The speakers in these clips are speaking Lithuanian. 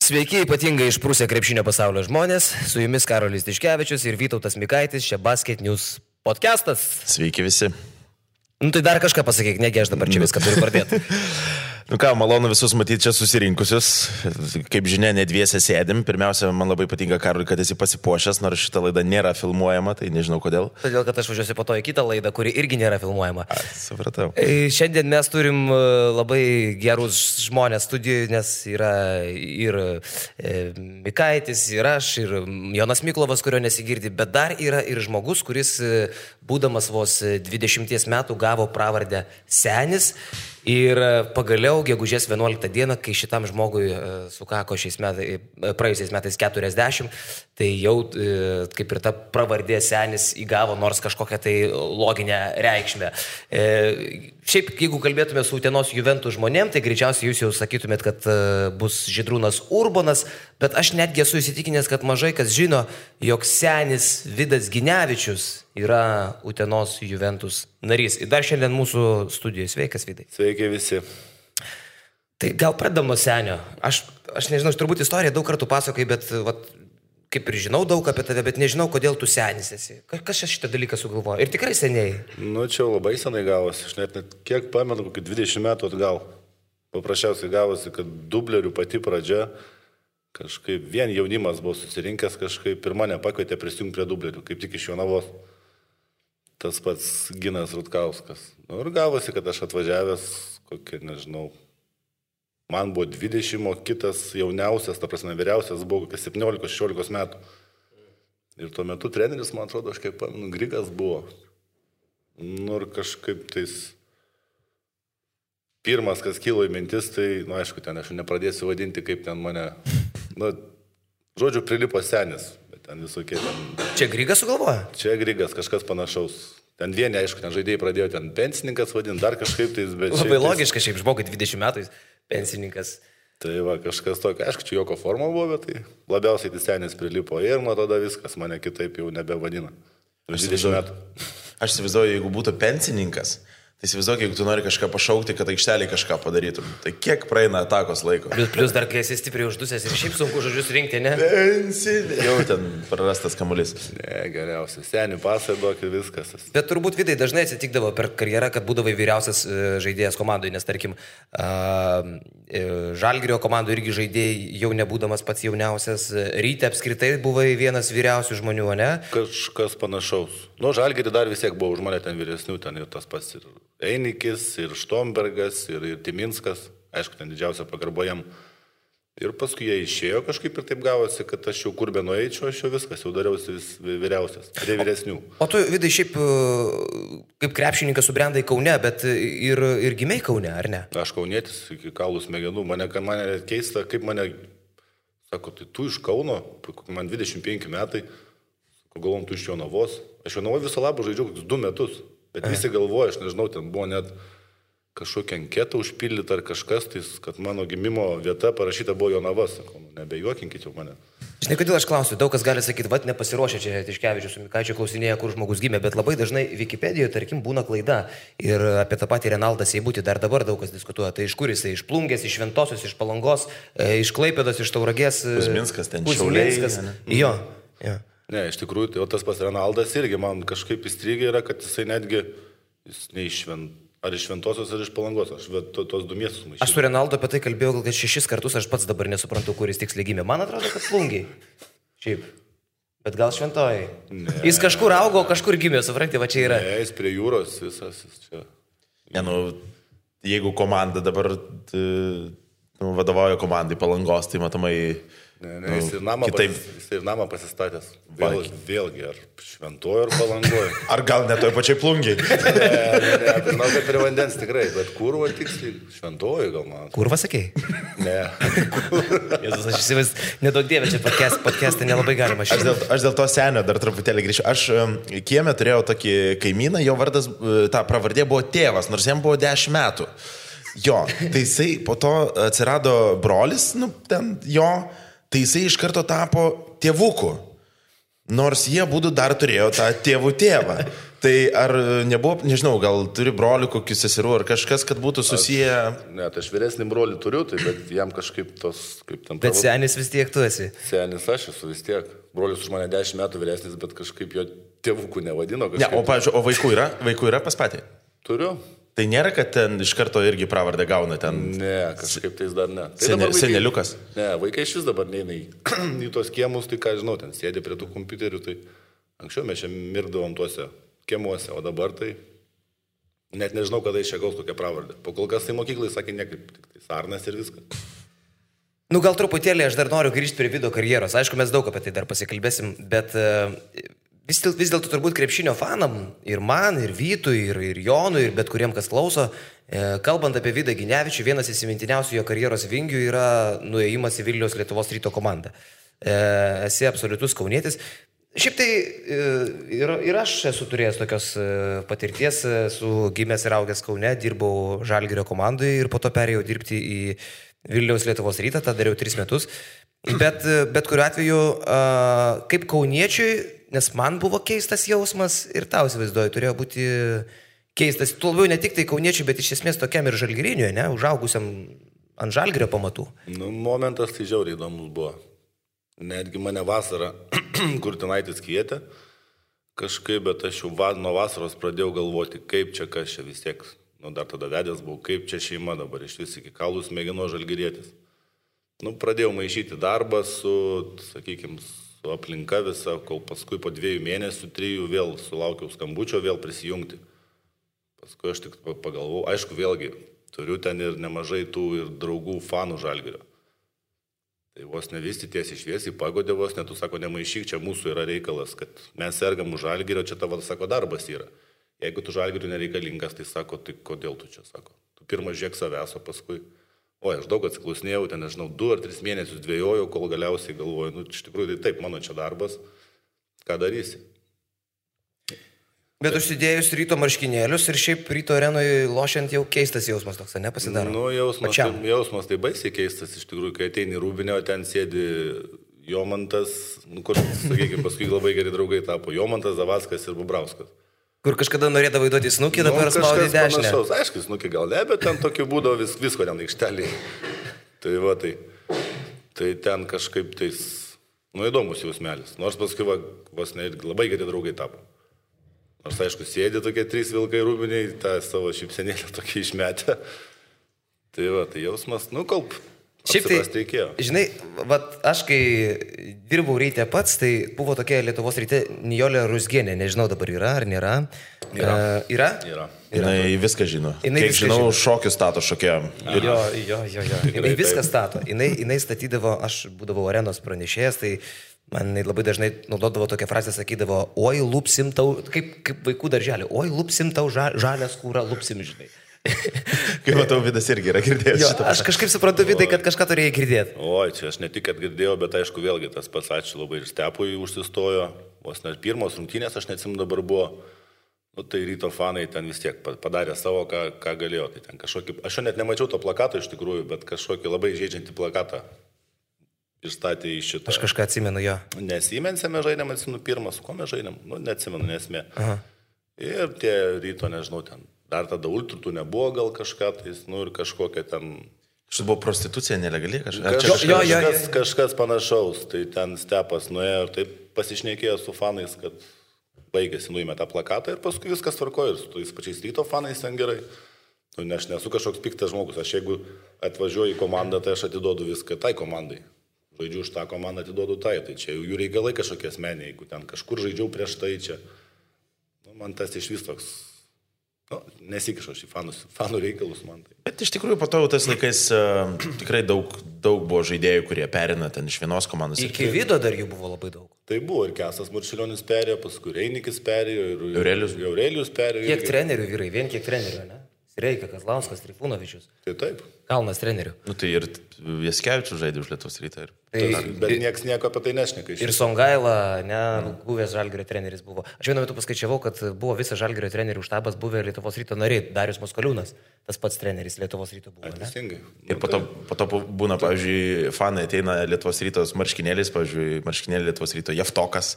Sveiki, ypatingai išprūsę krepšinio pasaulio žmonės, su jumis Karolis Tiškevičius ir Vytautas Mikaitis, čia Basket News podcastas. Sveiki visi. Tai dar kažką pasakyk, negi aš dabar čia viską turiu pradėti. Malonu visus matyti čia susirinkusius. Kaip žinia, ne dviese sėdim. Pirmiausia, man labai patinka, Karoli, kad esi pasipuošęs, nors šita laida nėra filmuojama, tai nežinau kodėl. Todėl, kad aš važiuosiu po to į kitą laidą, kuri irgi nėra filmuojama. Supratau. Šiandien mes turim labai gerus žmonės studijoje, nes yra ir Mikaitis, ir aš, ir Jonas Miklovas, kurio nesigirdi, bet dar yra ir žmogus, kuris, būdamas vos 20 metų, gavo pravardę Senis. Ir pagaliau, gegužės 11 dieną, kai šitam žmogui sukako praėjusiais metais 40, tai jau kaip ir ta pravardė Senis įgavo nors kažkokią tai loginę reikšmę. Šiaip, jeigu kalbėtume su Utenos Juventus žmonėm, tai greičiausiai jūs jau sakytumėt, kad bus Žydrūnas Urbonas, bet aš netgi esu įsitikinęs, kad mažai kas žino, jog Senis Vidas Ginevičius yra Utenos Juventus narys. Ir dar šiandien mūsų studijoje. Sveikas, Vidai. Sveiki visi. Tai gal pradedam nuo Senio. Aš nežinau, aš turbūt istoriją daug kartų pasakoju, bet kaip ir žinau daug apie tave, bet nežinau, kodėl tu Senis esi. Kas šitą dalyką sugalvojo? Ir tikrai seniai. Čia labai senai gavosi. Aš net kiek pamenu, kokį 20 metų atgal. Paprasčiausiai gavosi, kad dublerių pati pradžia, kažkaip vien jaunimas buvo susirinkęs, kažkaip ir mane pakvietė prisijungti prie dublerių, kaip tik iš Jonavos. Tas pats Ginas Rutkauskas. Ir gavosi, kad aš atvažiavęs, kokie, nežinau, man buvo 20, o kitas jauniausias, ta prasme vyriausias, buvo kokie 17-16 metų. Ir tuo metu treneris, man atrodo, aš kaip pamenu, Grigas buvo. Ir kažkaip tais pirmas, kas kilo į mintis, tai, aišku, ten aš nepradėsiu vadinti, kaip ten mane, žodžiu, prilipo Senis. Ten visokie ten... Čia Grigas sugalvoja? Čia Grigas, kažkas panašaus. Ten vieni, aišku, ten žaidėjai pradėjo ten pensininkas vadinti, dar kažkaip tais, bet... Labai logiška, šiaip žmogui 20 metų pensininkas. Tai va, kažkas tokio, aišku, čia joko forma buvo, bet tai labiausiai tai Senis prilipo ir nuo tada viskas mane kitaip jau nebevadina. 20 metų. Aš įsivaizduoju, jeigu būtų pensininkas, tai įsivaizduoju, jeigu tu nori kažką pašaukti, kad aikštelį kažką padarytum. Tai kiek praeina atakos laiko? Plius dar, kai esi stipriai uždusęs ir šiaip sunku žodžius rinkti, ne? Pensinį. Jau ten prarastas kamuolys. Ne, geriausia. Senį pasai duok ir viskas. Bet turbūt, Vidai, dažnai atsitikdavo per karjerą, kad būdavai vyriausias žaidėjas komandoje, nes, tarkim, Žalgirio komandų irgi žaidėjai, jau nebūdamas pats jauniausias, Ryte apskritai buvai vienas vyriausių žmonių, ne? Kažkas panašaus. Žalgirį dar vis tiek buvo už mane ten vyresnių, ten ir tas pats ir Einikis, ir Štombergas, ir Timinskas, aišku, ten didžiausia pagarba jam. Ir paskui jie išėjo kažkaip ir taip gavosi, kad aš jau kur be nueičiau, aš jau viskas, jau dariausi vyriausias, prie vyresnių. O tu, Vidai, šiaip kaip krepšininkas subrendai Kaune, bet ir gimei Kaune, ar ne? Aš kaunietis iki kaulų smegenų, mane keista, kaip mane, sako, tai tu iš Kauno, man 25 metai, galvom, tu iš Jonavos. Aš Jonavoje viso labo žaidžiau 2 metus, bet visi galvoja, aš nežinau, ten buvo net kažkokią anketą užpildyti ar kažkas, tai, kad mano gimimo vieta parašyta buvo Jonavas. Sakau, nebejuokinkit jau mane. Žinai, kodėl aš klausiu, daug kas gali sakyti, nepasiruošę čia Tiškevičius su Mikaičiu klausinėja, kur žmogus gimė, bet labai dažnai Wikipedijoje, tarkim, būna klaida. Ir apie tą patį Renaldą Seibutį dar dabar daug kas diskutuoja. Tai iš kur jisai? Iš Plungės, iš Šventosios, iš Palangos, iš Klaipėdos, iš Tauragės. Kuzminskas ten, Šiauliai. Jo. Ne, iš tikrųjų, tai tas pas Renaldas irgi man kažkaip įstrigė yra, kad jisai netgi, jis ne iš ar iš Šventosios, ar iš Palangos, aš tos 2 miestus maišydavau. Aš su Renaldo apie tai kalbėjau gal 6 kartus, aš pats dabar nesuprantu, kuris tiksliai gimė. Man atrodo, kad Plungiai. Šiaip. Bet gal Šventojai. Jis kažkur augo, kažkur gimė, supranti, va čia yra. Ne, jis prie jūros visas čia. Ne, jeigu komanda dabar vadovauja komandai Palangos, tai matomai... Ne, jis ir namą pasistatęs. Vėlgi, ar Šventojo, ar Palangoje. Ar gal ne toj pačiai Plungiai? Ne, žinau, kad prie vandens tikrai, bet kurva tiksliai, Šventojo gal man. Kurva sakei? Ne. Jezus, aš įsivaizduoju, nedaug dievė, čia podcast'e nelabai galima šiandien. Aš dėl to Senio dar truputėlį grįšiu. Aš kieme turėjau tokį kaimyną, jo vardas, ta pravardė buvo tėvas, nors jam buvo 10 metų. Jo, tai jisai po to atsirado brolis, tai jisai iš karto tapo tėvuku. Nors jie būtų dar turėjo tą tėvų tėvą. Tai ar nebuvo, nežinau, gal turi brolių, kokių seserų, ar kažkas, kad būtų susiję... Ne, tai aš vyresnį brolį turiu, tai bet jam kažkaip tos, kaip ten... Bet senis vis tiek tu esi. Senis aš esu vis tiek. Brolis už mane 10 metų vyresnis, bet kažkaip jo tėvukų nevadino. Ne, o, pavyzdžiui, o vaikų yra? Vaikų yra pas patį? Turiu. Tai nėra, kad ten iš karto irgi pravardę gauna ten... Ne, kažkaip tais dar ne. Tai seneliukas? Ne, vaikai iš vis dabar neina į tos kiemus, tai ką žinau, ten sėdė prie tų kompiuterių, tai anksčiau mes čia mirdavom tuose kiemuose, o dabar tai net nežinau, kada iš čia gaus tokią pravardę. Po kol kas tai mokyklai sakė nekaip, tik tai Sarnas ir viskas. Nu, gal truputėlį aš dar noriu grįžti prie Vido karjeros. Aišku, mes daug apie tai dar pasikalbėsim, bet vis dėlto turbūt krepšinio fanam, ir man, ir Vytui, ir Jonui, ir bet kuriem, kas klauso, kalbant apie Vidą Ginevičių, vienas įsimintiniausių jo karjeros vingių yra nuėjimas į Vilniaus Lietuvos Ryto komandą. Esi absoliutus kaunietis. Šiaip tai ir aš esu turėjęs tokios patirties, su gimęs ir augęs Kaune, dirbau Žalgirio komandai ir po to perėjau dirbti į Vilniaus Lietuvos Rytą, tą dariau 3 metus. Bet kuriuo atveju, kaip kauniečiui, nes man buvo keistas jausmas ir tau įsivaizduoju, turėjo būti keistas, tuo labiau ne tik tai kauniečiui, bet iš esmės tokiam ir žalgiriniui, ne, užaugusiam ant Žalgirio pamatų. Nu, momentas tai žiauriai įdomus buvo. Netgi mane vasarą Kurtinaitis kvietė kažkaip, bet aš jau nuo vasaros pradėjau galvoti, kaip čia, kas čia vis tiek, nu dar tada vedęs buvau, kaip čia šeima dabar iš vis iki kaulų smėgino žalgirietis. Nu, pradėjau maišyti darbą su, sakykime, su aplinka visą, kol paskui po 2 mėnesių, 3 vėl sulaukiau skambučio, vėl prisijungti. Paskui aš tik pagalvojau, aišku, vėlgi, turiu ten ir nemažai tų ir draugų fanų Žalgirio. Tai vos nevisti tiesiai šviesiai pagodė vos, net tu sako, nemaišyk, čia mūsų yra reikalas, kad mes sergam už Žalgirio, čia tavo, sako, darbas yra. Jeigu tu Žalgiriui nereikalingas, tai sako, tai kodėl tu čia, sako. Tu pirmą žiūrėk savęs, o paskui... Oi, aš daug atsiklausinėjau, ten, nežinau, 2 ar 3 mėnesius dvėjojau, kol galiausiai galvoju, nu, iš tikrųjų, tai taip, mano čia darbas, ką darysi. Bet užsidėjus Ryto marškinėlius ir šiaip Ryto arenoje lošiant jau keistas jausmas toks, ne, pasidaro? Nu, jausmas tai baisiai keistas, iš tikrųjų, kai ateini Rūbinę, o ten sėdi Jomantas, nu, kur, sakykime, paskui labai geri draugai tapo, Jomantas, Zavackas ir Bubrauskas. Kur kažkada norėdavo įduoti snukį, dabar spaudė dešinę. Aišku, snukį gal ne, bet ten tokiu būdavo visko ten aikštelį. Tai va, tai ten kažkaip tais, nu, įdomus jausmelis. Nors paskui vos ne labai geri draugai tapo. Nors, aišku, sėdė tokie 3 vilkai Rūbiniai, tą savo šypsenėlę tokį išmetę. Tai va, tai jausmas, nu, kalb. Šiaip tai, žinai, aš kai dirbau Ryte pats, tai buvo tokia Lietuvos Ryte Nijolė Rusgienė, nežinau dabar yra ar nėra. Yra? Jinai viską žino. Kiek žinau, šokius stato šokėjom. Jo. Jinai viską stato. Jinai statydavo, aš būdavau arenos pranešėjas, tai man labai dažnai naudodavo tokią frazę, sakydavo, oi, lupsim tau, kaip vaikų darželį, oi, lupsim tau žalę skūrą, lupsim, žinai. Kaip matau, Vidas irgi yra girdėjęs šitą. Aš kažkaip suprantu, Vidai, kad kažką turėjai girdėti. Oi, čia aš ne tik, kad girdėjau, bet aišku, vėlgi tas pats ačiū labai ir Stepui užsistojo. Vos net pirmos rungtynės, aš neatsimenu dabar buvo. Nu, tai Ryto fanai ten vis tiek padarė savo, ką galėjo. Tai ten kažkokį, aš jau net nemačiau to plakato iš tikrųjų, bet kažkokį labai žaidžiantį plakatą išstatė į šitą. Aš kažką atsimenu jo. Nesimensėme žaidėm, atsimenu pirmas, ko mes žaidėm, nu, neatsimenu, nesmė. Ir tie Ryto, nežinau, ten. Dar tada ultritų nebuvo gal kažką, tai, nu ir kažkokia ten... Štai buvo prostitucija nelegali kažkas panašaus, tai ten Stepas nuėjo ir taip pasišnekėjo su fanais, kad baigėsi, nuėmė tą plakatą ir paskui viskas tvarkojo ir su tais pačiais Ryto fanais ten gerai. Nu, aš nesu kažkoks piktas žmogus, aš jeigu atvažiuoju į komandą, tai aš atiduodu viską tai komandai. Žaidžiu už tą komandą, atiduodu tai čia jų reikalai kažkokie asmeniai, jeigu ten kažkur žaidžiau prieš tai čia. Nu, man tas iš vis toks... Nu, nesikišau šį fanų reikalus man tai. Bet iš tikrųjų po to tais laikais tikrai daug buvo žaidėjų, kurie perina ten iš vienos komandos. Iki Vido dar jų buvo labai daug. Tai buvo ir Kesas Marčiulionis perėjo, paskui Reinikis perėjo, ir Aurelijus perėjo. Kiek trenerių vyrai, vien kiek trenerių, ne? Reikia Kazlauskas, Trifūnovičius. Tai taip. Kalnas trenerių. Nu tai ir Jaskevičius žaidė už Lietuvos Rytą. Bet nieks nieko apie tai nešneka. Ir Songaila, buvęs Žalgirio treneris buvo. Aš vienu metu paskaičiavau, kad buvo visas Žalgirio trenerių štabas buvę Lietuvos Ryto nariai. Darius Moskoliūnas, tas pats treneris Lietuvos Ryto buvo. Teisingai. Ir po to būna, pavyzdžiui, fanai ateina Lietuvos Rytos marškinėlis, pavyzdžiui, marškinėlį Lietuvos Ryto Jeftokas.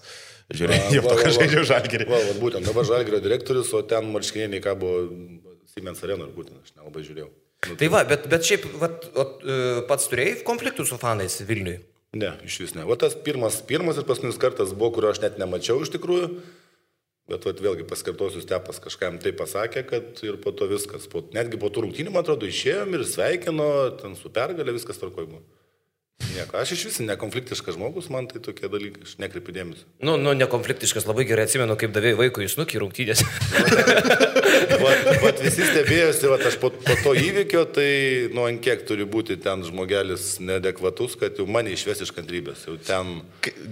Žiūrėjau, Jeftokas žaidžia Žalgirį. Būtent dabar Žalgirio direktorius, o ten marškinėliai ką buvo Siemens Arena, būtent aš nelabai žiūrėjau. Tai va, bet šiaip pats turėjai konfliktų su fanais Vilniui? Ne, iš vis ne. O tas pirmas ir paskutinis kartas buvo, kurio aš net nemačiau iš tikrųjų, bet vėlgi paskartosiu, Stepas kažkam tai pasakė, kad ir po to viskas. Netgi po tų rungtynių, man atrodo, išėjom ir sveikino, ten su pergalė viskas tvarkoj buvo. Nieko, aš iš vis nekonfliktiškas žmogus, man tai tokie dalykai, aš nekreipiu dėmesio. Nu, nekonfliktiškas, labai gerai atsimenu, kaip davėjai vaikui į snukį rungtynės. Vat visi stebėjosi, aš po to įvykio, tai ant kiek turi būti ten žmogelis neadekvatus, kad jau mane išves iš kantrybės. Jau ten...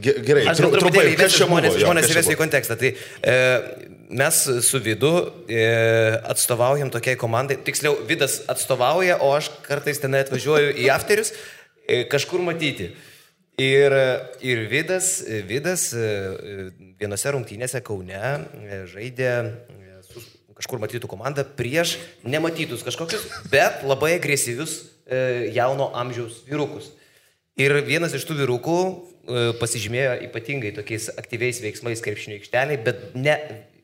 Gerai, aš trumpai, žmonės įvesiu į kontekstą. Tai mes su Vidu atstovaujam tokiai komandai, tiksliau, Vidas atstovauja, o aš kartais ten atvažiuoju į afterius, kažkur matyti. Ir Vidas vienose rungtynėse Kaune žaidė su kažkur matytų komandą prieš nematytus kažkokius, bet labai agresyvius jauno amžiaus vyrukus. Ir vienas iš tų vyrukų pasižymėjo ypatingai tokiais aktyviais veiksmais krepšinio aikšteliai, bet ne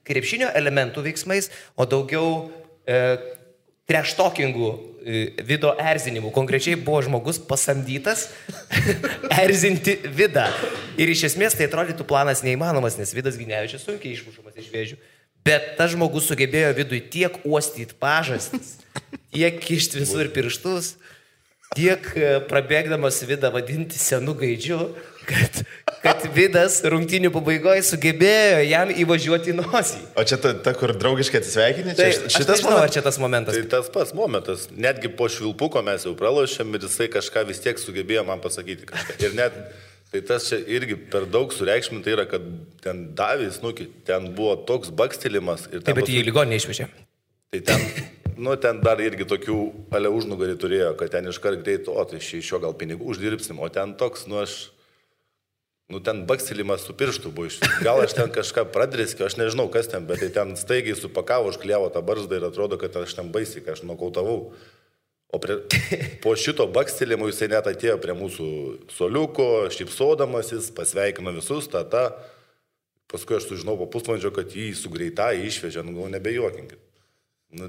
krepšinio elementų veiksmais, o daugiau treštalkingų Vido erzinimų. Konkrečiai buvo žmogus pasamdytas erzinti Vidą. Ir iš esmės tai atrodytų planas neįmanomas, nes Vidas Ginevičius sunkiai išmušamas iš vėžių. Bet tas žmogus sugebėjo Vidui tiek uostyti pažastis, tiek kišti visur pirštus, tiek prabėgdamas Vidą vadinti senu gaidžiu, kad Vidas rungtynių pabaigoje sugebėjo jam įvažiuoti į nosį. O čia ta kur draugiškai atsisveikinė? Tai šitas nežinau, ar čia tas momentas. Tai tas pats momentas. Netgi po švilpuko mes jau pralošėm ir jisai kažką vis tiek sugebėjo man pasakyti kažką. Ir net, tai tas čia irgi per daug sureikšminta yra, kad ten davė snukį, ten buvo toks bakstelimas. Taip, bet jį į ligoninę išvežė. Tai ten dar irgi tokių ale užnugarį turėjo, kad ten iškart greit, o tai iš jo gal pinigų uždirbsim, o ten toks, ten bakstelimas su pirštu buvo iš. Gal aš ten kažką pradriskiu, aš nežinau kas ten, bet tai ten staigiai supakavo, užkliavo tą barzdą ir atrodo, kad aš ten baisiai, kad aš nokautavau. O po šito bakstelimo jisai net atėjo prie mūsų soliuko, šypsodamasis, pasveikino visus, paskui aš sužinau po pusvalandžio, kad jį su greitai išvežė, nebejuokinkit.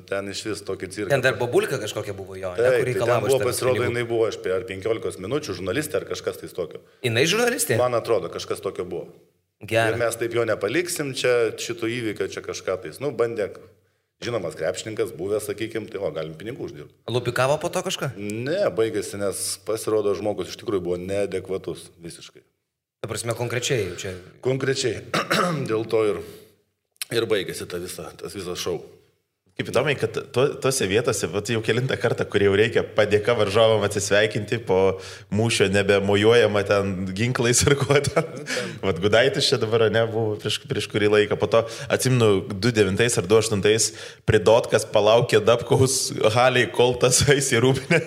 Ten iš vis tokį cirką. Ten dar bobulka kažkokia buvo jo, kur reikalavo. Ten buvo, pasirodo, jinai buvo aš per 15 minučių žurnalistė ar kažkas tai tokio. Jinai žurnalistė? Man atrodo, kažkas tokio buvo. Gerai. Ir mes taip jo nepaliksim, čia šito įvykio, čia kažką tais. Bandė, žinomas krepšininkas, buvęs, sakykim, tai galim pinigų uždirbti. Lupikavo po to kažką? Ne, baigėsi, nes pasirodo žmogus iš tikrųjų buvo neadekvatus visiškai. Ta prasme, konkrečiai jau čia? Konkrečiai. Dėl to ir baigėsi tas visas šou. Kaip įdomiai, kad tose vietose, jau kelintą kartą, kur jau reikia padėka varžovam atsisveikinti, po mūšio nebemojuojama ten ginklais ir kuo ten. Gudaitis čia dabar nebuvo prieš kurį laiką. Po to, atsimenu, 2009 ar 2008 pridotkas palaukė Dabkaus haliai, kol tas eis į rūpinę.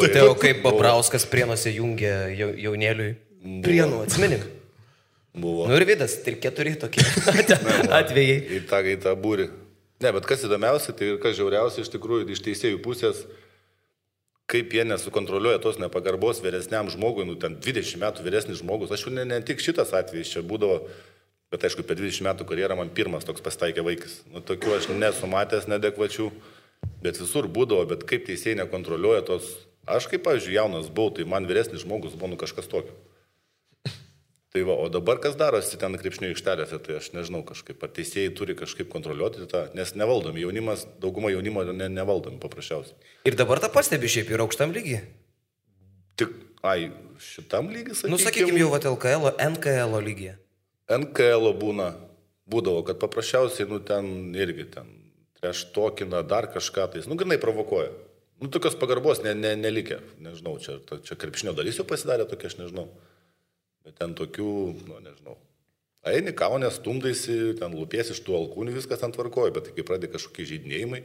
Tai jau kaip Babrauskas Prienuose jungė jaunėliui. Prienų, atsimenim. Buvo. Ir Vidas, 3-4 tokie atvejai. Į tą būrį. Ne, bet kas įdomiausia, tai ir kas žiauriausia iš tikrųjų iš teisėjų pusės, kaip jie nesukontroliuoja tos nepagarbos vyresniam žmogui, ten 20 metų vyresnis žmogus. Aš jau ne tik šitas atvejis čia būdavo, bet aišku, per 20 metų karjerą man pirmas toks pasitaikė vaikas. Tokių aš nesu matęs neadekvačių, bet visur būdavo, bet kaip teisėjai nekontroliuoja tos. Aš kaip, pavyzdžiui, jaunas buvau, tai man vyresnis žmogus buvo kažkas tokio. Tai o dabar kas darosi ten krepšinio aikštelėse, tai aš nežinau kažkaip, ar teisėjai turi kažkaip kontroliuoti tą, nes nevaldomi jaunimas, dauguma jaunimo nevaldomi paprasčiausiai. Ir dabar tą pastebi šiaip ir aukštam lygiai. Tik, šitam lygiai, sakykime. Sakykime jau LKL, NKL lygiai. NKL būdavo, kad paprasčiausiai, ten irgi ten treštokina dar kažką, tai, grinai provokuoja. Tokios pagarbos nelikė, nežinau, čia krepšinio dalis jau pasidarė tokia, aš nežinau. Bet ten tokių, nežinau. Eini, kaunės, stumdaisi, ten lūpies iš tų alkūnių, viskas ten tvarkoja, bet kai pradė kažkokie žaidinėjimai,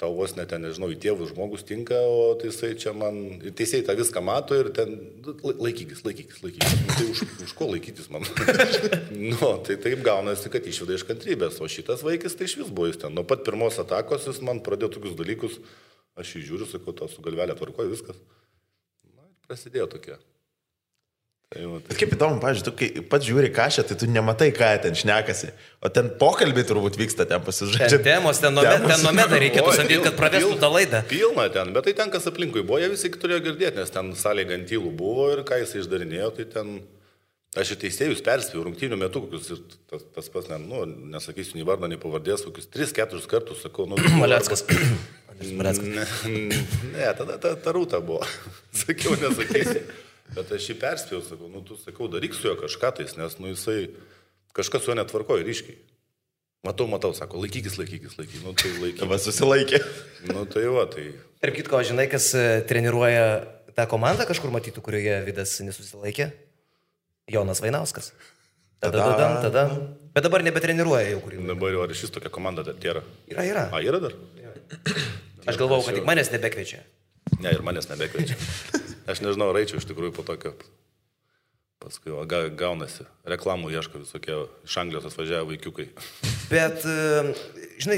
tau vos net ten, nežinau, į tėvų žmogus tinka, o teisai čia man, ir teisėjai tą viską mato ir ten laikykis. Tai už ko laikytis man? Tai taip gaunasi, kad išveda iš kantrybės, o šitas vaikis tai iš vis buvo jis ten. Nuo pat pirmos atakos jis man pradėjo tokius dalykus, aš jį žiūriu, sakau, to su galvelė tvarkoju, viskas. Na, prasidėjo tokia. Bet kaip įdomu, pavyzdžiui, tu kai pats žiūri kažką, tai tu nematai, ką ten šnekasi. O ten pokalbiai turbūt vyksta, ten pasižaidžia. Ten nomeda reikėtų samdyti, kad pravestų tą laidą. Pilna ten, bet tai ten, kas aplinkui buvo, jie visi turėjo girdėti, nes ten salė gantylų buvo ir ką jis išdarinėjo, tai ten... Aš ir teisėjus perspėjau rungtynių metu, kokius ir tas pats, nesakysiu nei vardą, nei pavardės, kokius 3-4 kartus sakau, Maleckas. Ne, tada ta rūta buvo. Sakiau, nesakysiu. Bet aš jį perspėjau, sakau, tu sakau, daryk su juo kažką tais, nes, jisai kažkas su juo netvarkoja ryškiai. Matau, sako, laikykis. Tai laikykis. Va, susilaikė. Tai. Ir kitko, žinai, kas treniruoja tą komandą kažkur matytų, kurioje Vidas nesusilaikė? Jonas Vainauskas. Tada. Bet dabar nebetreniruoja jau kurį. Dabar jau ar šis tokia komanda dar yra? Yra. Yra dar? Aš galvojau, kad tik manęs nebekviečia. Ne, ir manęs nebekviečia. Aš nežinau, raičiau iš tikrųjų po tokio. Paskui gaunasi. Reklamų ieško visokie iš Anglijos atvažiavę vaikiukai. Bet, žinai,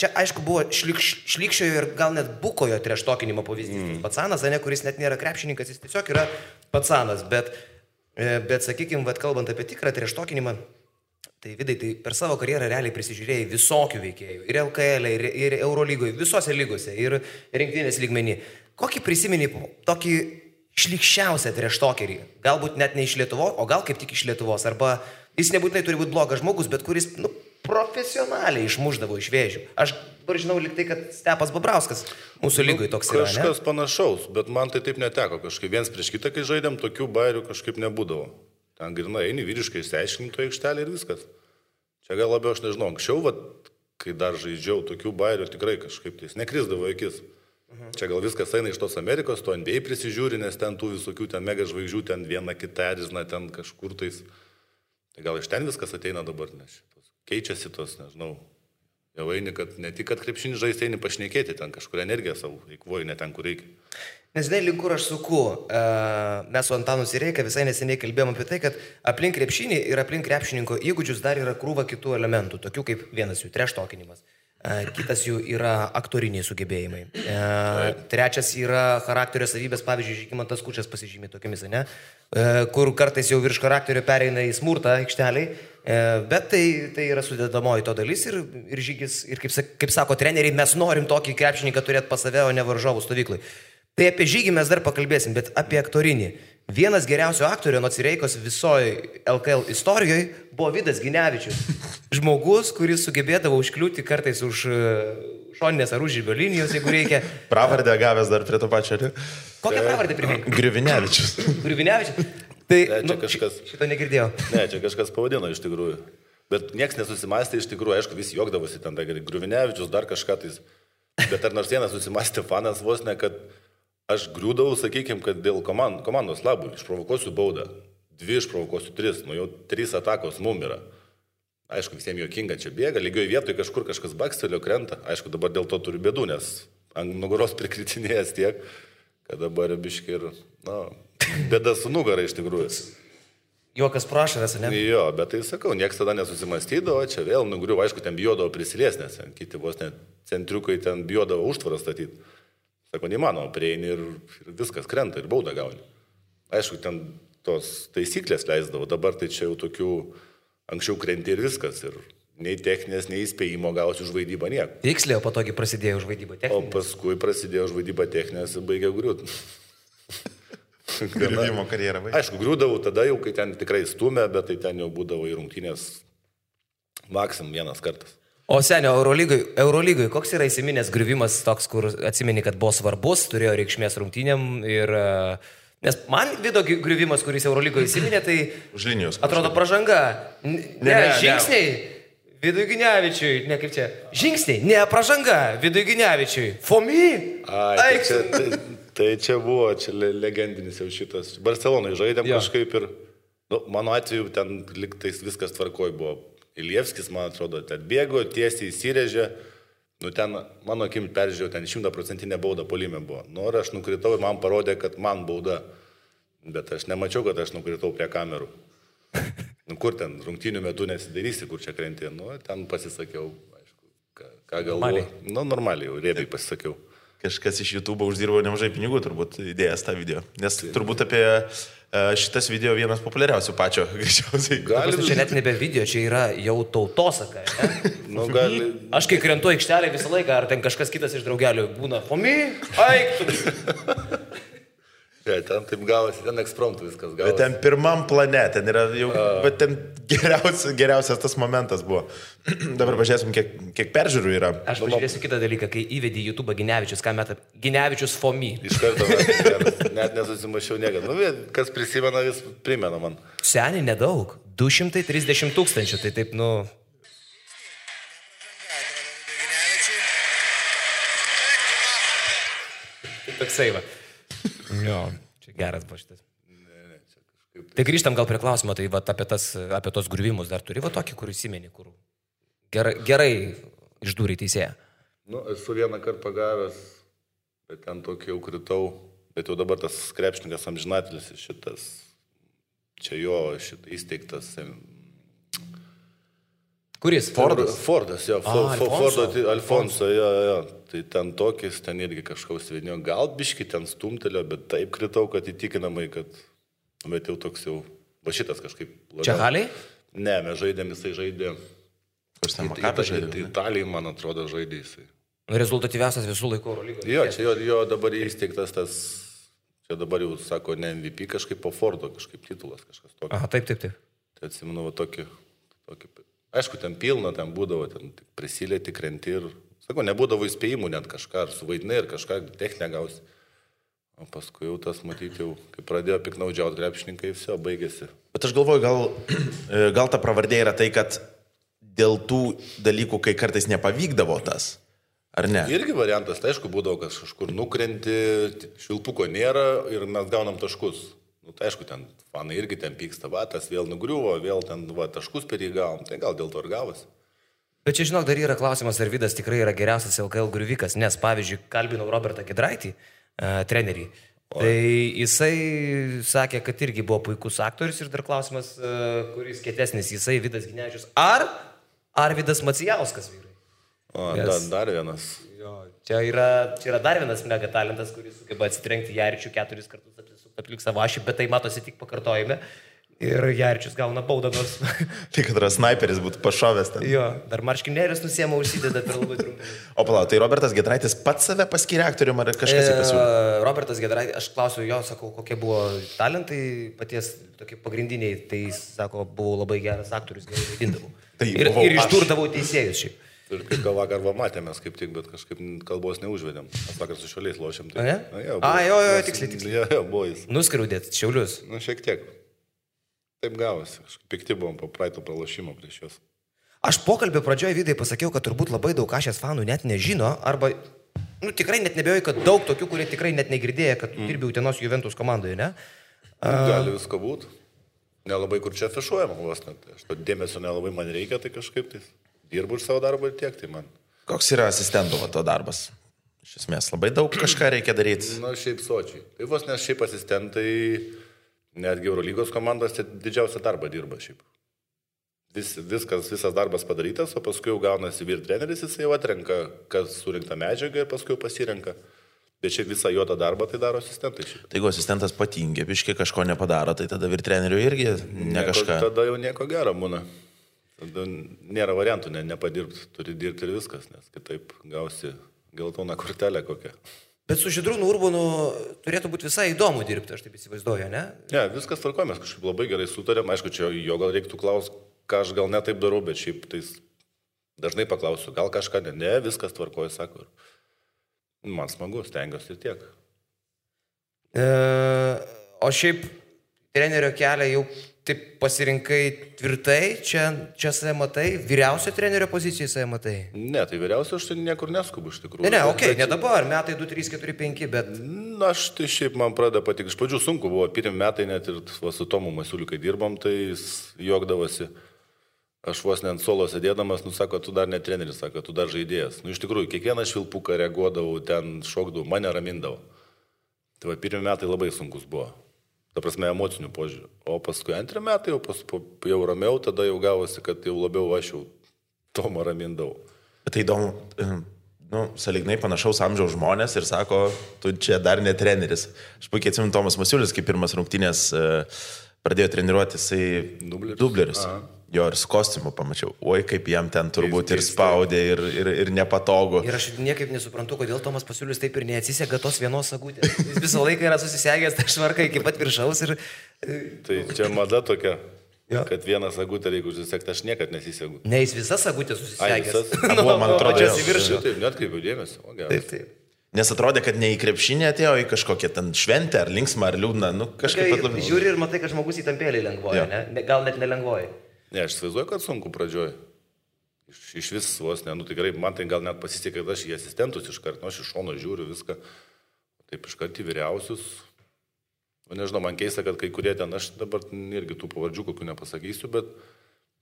čia aišku buvo šlykščiojo ir gal net bukojo treštokinimo pavyzdys. Patsanas, kuris net nėra krepšininkas, jis tiesiog yra patsanas. Bet sakykime, kalbant apie tikrą treštokinimą, tai Vidai, tai per savo karjerą realiai prisižiūrėjai visokių veikėjų. Ir LKL, ir Eurolygoje, visose lygose, ir rinktinės lygmenį. Kokį prisimeni tokį šlykščiausią treštokerį? Galbūt net ne iš Lietuvos, o gal kaip tik iš Lietuvos. Arba jis nebūtinai turi būti blogas žmogus, bet kuris profesionaliai išmuždavo iš vėžių. Aš dabar žinau liktai, kad Stepas Babrauskas mūsų lygoje toks yra. Kažkas panašaus, bet man tai taip neteko. Kažkaip viens prieš kitą, kai žaidėm, tokių bairių kažkaip nebūdavo. Ten grinai eini vyriškai išsiaiškinti to aikštelį ir viskas. Čia gal labiau aš nežinau. Anksčiau, kai dar žaidžiau, tokių bairių tikrai kažkaip tai nekrisdavo akis. Čia gal viskas eina iš tos Amerikos, to NBA prisižiūri, nes ten tų visokių ten mega žvaigždžių, ten viena kita erzina, ten kažkur tais. Tai gal iš ten viskas ateina dabar, nes keičiasi tos, nežinau. Jau eini, kad ne tik, kad krepšinį žaisti, eini pašnekėti, ten kažkur energiją savo eikvoji, ne ten, kur reikia. Nes žinai, link kur aš suku, mes su Antanu Sireika visai neseniai kalbėjom apie tai, kad aplink krepšinį ir aplink krepšininko įgūdžius dar yra krūva kitų elementų, tokių kaip vienas jų treštokinimas. Kitas jų yra aktoriniai sugebėjimai. Trečias yra charakterio savybės, pavyzdžiui, Žygimantas Kučas pasižymė tokiamis, ne? Kur kartais jau virš charakterio pereina į smurtą aikšteliai, bet tai yra sudėdamoji to dalis ir Žygis, ir kaip sako treneriai, mes norim tokį krepšininką turėti pas save, o ne varžovų stovyklai. Tai apie Žygį mes dar pakalbėsim, bet apie aktorinį. Vienas geriausių aktorių nuo Cireikos visoje LKL istorijoje buvo Vidas Ginevičius. Žmogus, kuris sugebėdavo užkliūti kartais už šoninės ar užžibio linijos, jeigu reikia. Pravardę gavęs dar prie to pačio. Kokią pravardę primink? Grivinevičius. Tai kažkas... šito negirdėjau. Ne, čia kažkas pavadino iš tikrųjų. Bet nieks nesusimastė iš tikrųjų, aišku, visi juokdavosi ten, Grivinevičius, dar kažką tais. Bet ar nors vienas susimastė fanas vos ne, kad aš griūdavau, sakykime, kad dėl komandos labų išprovokuosiu baudą. 2 išprovokuosiu 3, jau 3 atakos mum yra. Aišku, visiems juokinga čia bėga, lygioje vietoje kažkur kažkas bakstelio krenta. Aišku, dabar dėl to turiu bėdų, nes ant nugaros prikritinėjęs tiek, kad dabar biški ir, bėda su nugara iš tikrųjų. Juokas prašaras, ne? Jo, bet tai sakau, nieks tada nesusimastydavo, čia vėl nugriuvo, aišku, ten bijodavo prisilies, nes kiti vos net centriukai ten bijodavo užtvarą statyti. Sako, neįmanoma, prieini ir viskas krenta ir baudą gauni. Aišku, ten tos taisyklės leisdavo, dabar tai čia jau tokių anksčiau krenti ir viskas. Ir nei techninės, nei įspėjimo gausi už vaidybą nieko. Tiksliai, o patogiai prasidėjo už vaidybą techninės. O paskui prasidėjo už vaidybą techninės ir baigė griūti. Griuvimo karjerą baigė. Aišku, griūdavau tada jau, kai ten tikrai stumė, bet tai ten jau būdavo į rungtynės maksimum vienas kartas. O senio, Eurolygoje, koks yra įsiminęs griuvimas toks, kur atsimeni, kad buvo svarbus, turėjo reikšmės rungtynėm ir... Nes man Vido griuvimas, kuris Eurolygoje įsiminė, tai... Už linijos. Atrodo pražanga. Ne, žingsniai. Vidui Ginevičiui, ne kaip čia. Žingsniai, ne pražanga. Vidui Ginevičiui. Fomi. Tai čia buvo, čia legendinis jau šitas. Barcelonai žaidėm kažkaip ir... Mano atveju ten liktais viskas tvarkoj buvo. Ilievskis, man atrodo, ten bėgo, tiesiai įsirėžė. Nu, ten, mano akim peržiūrėjau, ten 100% bauda polime buvo. Nu, ir aš nukritau ir man parodė, kad man bauda. Bet aš nemačiau, kad aš nukritau prie kamerų. Nu, kur ten rungtynių metu nesidarysi, kur čia krenti. Nu, ten pasisakiau, aišku, ką galvoju. Nu, normaliai, jau riebiai pasisakiau. Kažkas iš YouTube uždirbo nemažai pinigų, turbūt įdėjęs tą video. Nes turbūt apie šitas video vienas populiariausių pačio, greičiausiai. Čia net nebe video, čia yra jau tautosaka. Nu, gali... Aš kai krentu aikštelę visą laiką, ar ten kažkas kitas iš draugelių būna, Fomi, aik tu. Ja, ten taip gavosi, ten ekspromptų viskas gavosi. Bet ten pirmam plane, ten yra jau, bet ten geriausias tas momentas buvo. Dabar pažiūrėsim, kiek peržiūrų yra. Aš pažiūrėsiu kitą dalyką, kai įvedė YouTube Ginevičius, ką meta Ginevičius Fomi. Iš karto, net nesusimašiau niekada. Nu, kas prisimena, vis primena man. Seniai nedaug, 230 000, tai taip, nu... Toksai va. Jo, čia geras buvo šitas. Tai grįžtam gal prie klausimo, tai va, apie tos griuvimus dar turi va tokį, kur įsimeni, kur gerai išdūrė teisėją. Nu, esu vieną kartą pagavęs, bet ten tokį jau kritau, bet jau dabar tas krepšininkas amžinatelis šitas, čia jo įsteigtas. Kuris? Fordas, jo, Alfonso, jo. Tai ten tokis, ten irgi kažkaus vidinio, gal biški ten stumtelio, bet taip kritau, kad įtikinamai, kad, bet jau toks jau, va šitas kažkaip. Čia Haliai? Ne, mes žaidėm, jisai žaidė. Italijai, man atrodo, žaidė jisai. Rezultatyviausias visų laikų Eurolygos. Jo, čia jo dabar įsteigtas tas, čia dabar jau sako, ne MVP, kažkaip po Fordo, kažkaip titulas, kažkas tokio. Aha, taip. Tai atsimenu, va tokį. Aišku, ten pilna, ten būdavo, ten prisilieti, krenti ir, sako, nebūdavo įspėjimų net kažką, ar suvaidinai, ir kažką techninę gausi. O paskui jau tas matyti, jau, kai pradėjo piknaudžiauti krepšininkai, viso, baigėsi. Bet aš galvoju, gal ta pravardė yra tai, kad dėl tų dalykų, kai kartais nepavykdavo tas, ar ne? Irgi variantas, tai aišku, būdavo, kad kažkur nukrenti, švilpuko nėra ir mes gaunam taškus. Nu, tai aišku, ten fanai irgi ten pyksta, va, tas vėl nugriuvo, vėl ten va, taškus per jį gavom, tai gal dėl to ir gavosi. Bet čia, žinok, dar yra klausimas, ar Vidas tikrai yra geriausias LKL griuvikas, nes, pavyzdžiui, kalbinau Robertą Giedraitį, trenerį, tai jisai sakė, kad irgi buvo puikus aktorius ir dar klausimas, kuris kietesnis, jisai Vidas Ginevičius, ar Vidas Macijauskas, vyrai? O, dar vienas. Jo, čia yra dar vienas mega talentas, kuris sugeba atsitrenkti Jaričių 4 kartus aplink savo ašį, bet tai matosi tik pakartojime. Ir Jaričius gauna baudą nors. Tik kad snaiperis būtų pašovęs ten. Jo, dar marškinėlius nusiema, užsideda per labai trumpai. O palauk, tai Robertas Giedraitis pats save paskyrė aktorium ar kažkas jį pasiūlė? Robertas Giedraitis, aš klausiu jo, sakau, kokie buvo talentai paties tokie pagrindiniai, tai sako, buvau labai geras aktorius, gerai vaidindavau. Tai ir išdurdavau teisėjus šiaip. Ir kaip gal vakar matėmės kaip tik, bet kažkaip kalbos neužvedėm. Aš vakar su Šiauliais lošėm. Tai... Ne? Jo, tiksliai. Jo, buvo jis. Nuskriaudėt Šiaulius. Nu, šiek tiek. Taip gavosi. Pikti buvom po praeito pralošimo prieš juos. Aš pokalbio pradžioje Vidai pasakiau, kad turbūt labai daug Ašės fanų net nežino, arba, tikrai net nebejoju, kad daug tokių, kurie tikrai net negirdėjo, kad dirbi Utenos Juventus komandoje, ne? Gali visko būti. Nelabai kur čia afišuojama vos net. Aš to dėmesio nelabai man reikia, tai kažkaip tai dirbu už savo darbą ir tiek, tai man. Koks yra asistento to darbas? Iš esmės, labai daug kažką reikia daryti. Na, šiaip sočiai. Tai vos nes šiaip asistentai, netgi Eurolygos komandos didžiausią darbą dirba šiaip. Visas darbas padarytas, o paskui jau gaunasi vyr treneris, jis jau atrenka, kas surinkta medžiaga ir paskui jau pasirenka. Bet šiaip visą jo tą darbą tai daro asistentai šiaip. Tai jeigu asistentas patingė, biškai kažko nepadaro, tai tada vyr trenerių irgi kažką. Tada jau nieko gero būna. Tada nėra variantų, nepadirbti, turi dirbti ir viskas, nes kitaip gausi geltoną kortelę kokią. Bet su Žydrūnu Urbonu turėtų būti visai įdomu dirbti, aš taip įsivaizduoju, ne? Ne, viskas tvarkoja, mes kažkaip labai gerai sutarėm, aišku, čia jo gal reiktų klausti, ką aš gal netaip darau, bet šiaip tai dažnai paklausiu, gal kažką ne, viskas tvarkoja, sako. Man smagu, stengiuosi ir tiek. O šiaip trenerio kelią jau taip pasirinkai tvirtai, čia save matai, vyriausio trenerio pozicijoje save matai? Ne, tai vyriausio aš tai niekur neskubu iš tikrųjų. Ne, okei, ne dabar, metai 2, 3, 4, 5, bet... Na, aš tai šiaip man pradeda patik, iš pradžių sunku buvo, pirmi metai net ir su Tomu Masiuliu, kai dirbom, tai jis juokdavosi. Aš vos ne ant suolo sėdėdamas, sako, tu dar ne treneris, sako, tu dar žaidėjas. Iš tikrųjų, kiekvieną švilpuką reaguodavau, ten šokdavau, mane ramindavo. Tai va, pirmi metai labai sunkus buvo. Ta prasme, emocinių požiūrių. O paskui antrį metai jau ramiau, tada jau gavosi, kad jau labiau aš jau Tomą ramindavau. Tai įdomu, sąlyginai panašaus amžiaus žmonės ir sako, tu čia dar ne treneris. Aš puikiai atsimenu Tomas Masiulis, kaip pirmas rungtynės pradėjo treniruoti, jisai dubleris. Jo ir su kostiumu pamačiau. Oi, kaip jam ten turbūt ir spaudė, ir nepatogu. Ir aš niekaip nesuprantu, kodėl Tomas Masiulis taip ir neatsisega tos vienos sagutės. Jis visą laiką yra susisegęs tą švarką iki pat viršaus ir... Tai čia mada tokia, kad vieną sagutę reikia užsisekti, aš niekad nesisegu. Ne, jis visas sagutės susisegęs. Man atrodo, čia į viršų. Taip, net kaip dėmesio. Taip. Nes atrodė, kad ne į krepšinį atėjo, į kažkokią ten šventę, ar linksmą, ar liūdną. Kažkaip pat labiau. Žiūri ir matai, kad žmogus įtampėlį lengvoja, ne? Gal net nelengvoja. Ne, aš įsivaizduoju, kad sunku pradžioj. Iš vis vos, ne, tikrai, man tai gal net pasisekė, kad aš į asistentus iškart, aš iš šono žiūriu viską, taip iškart į vyriausius. Nežinau, man keista, kad kai kurie ten, aš dabar irgi tų pavardžių kokių nepasakysiu, bet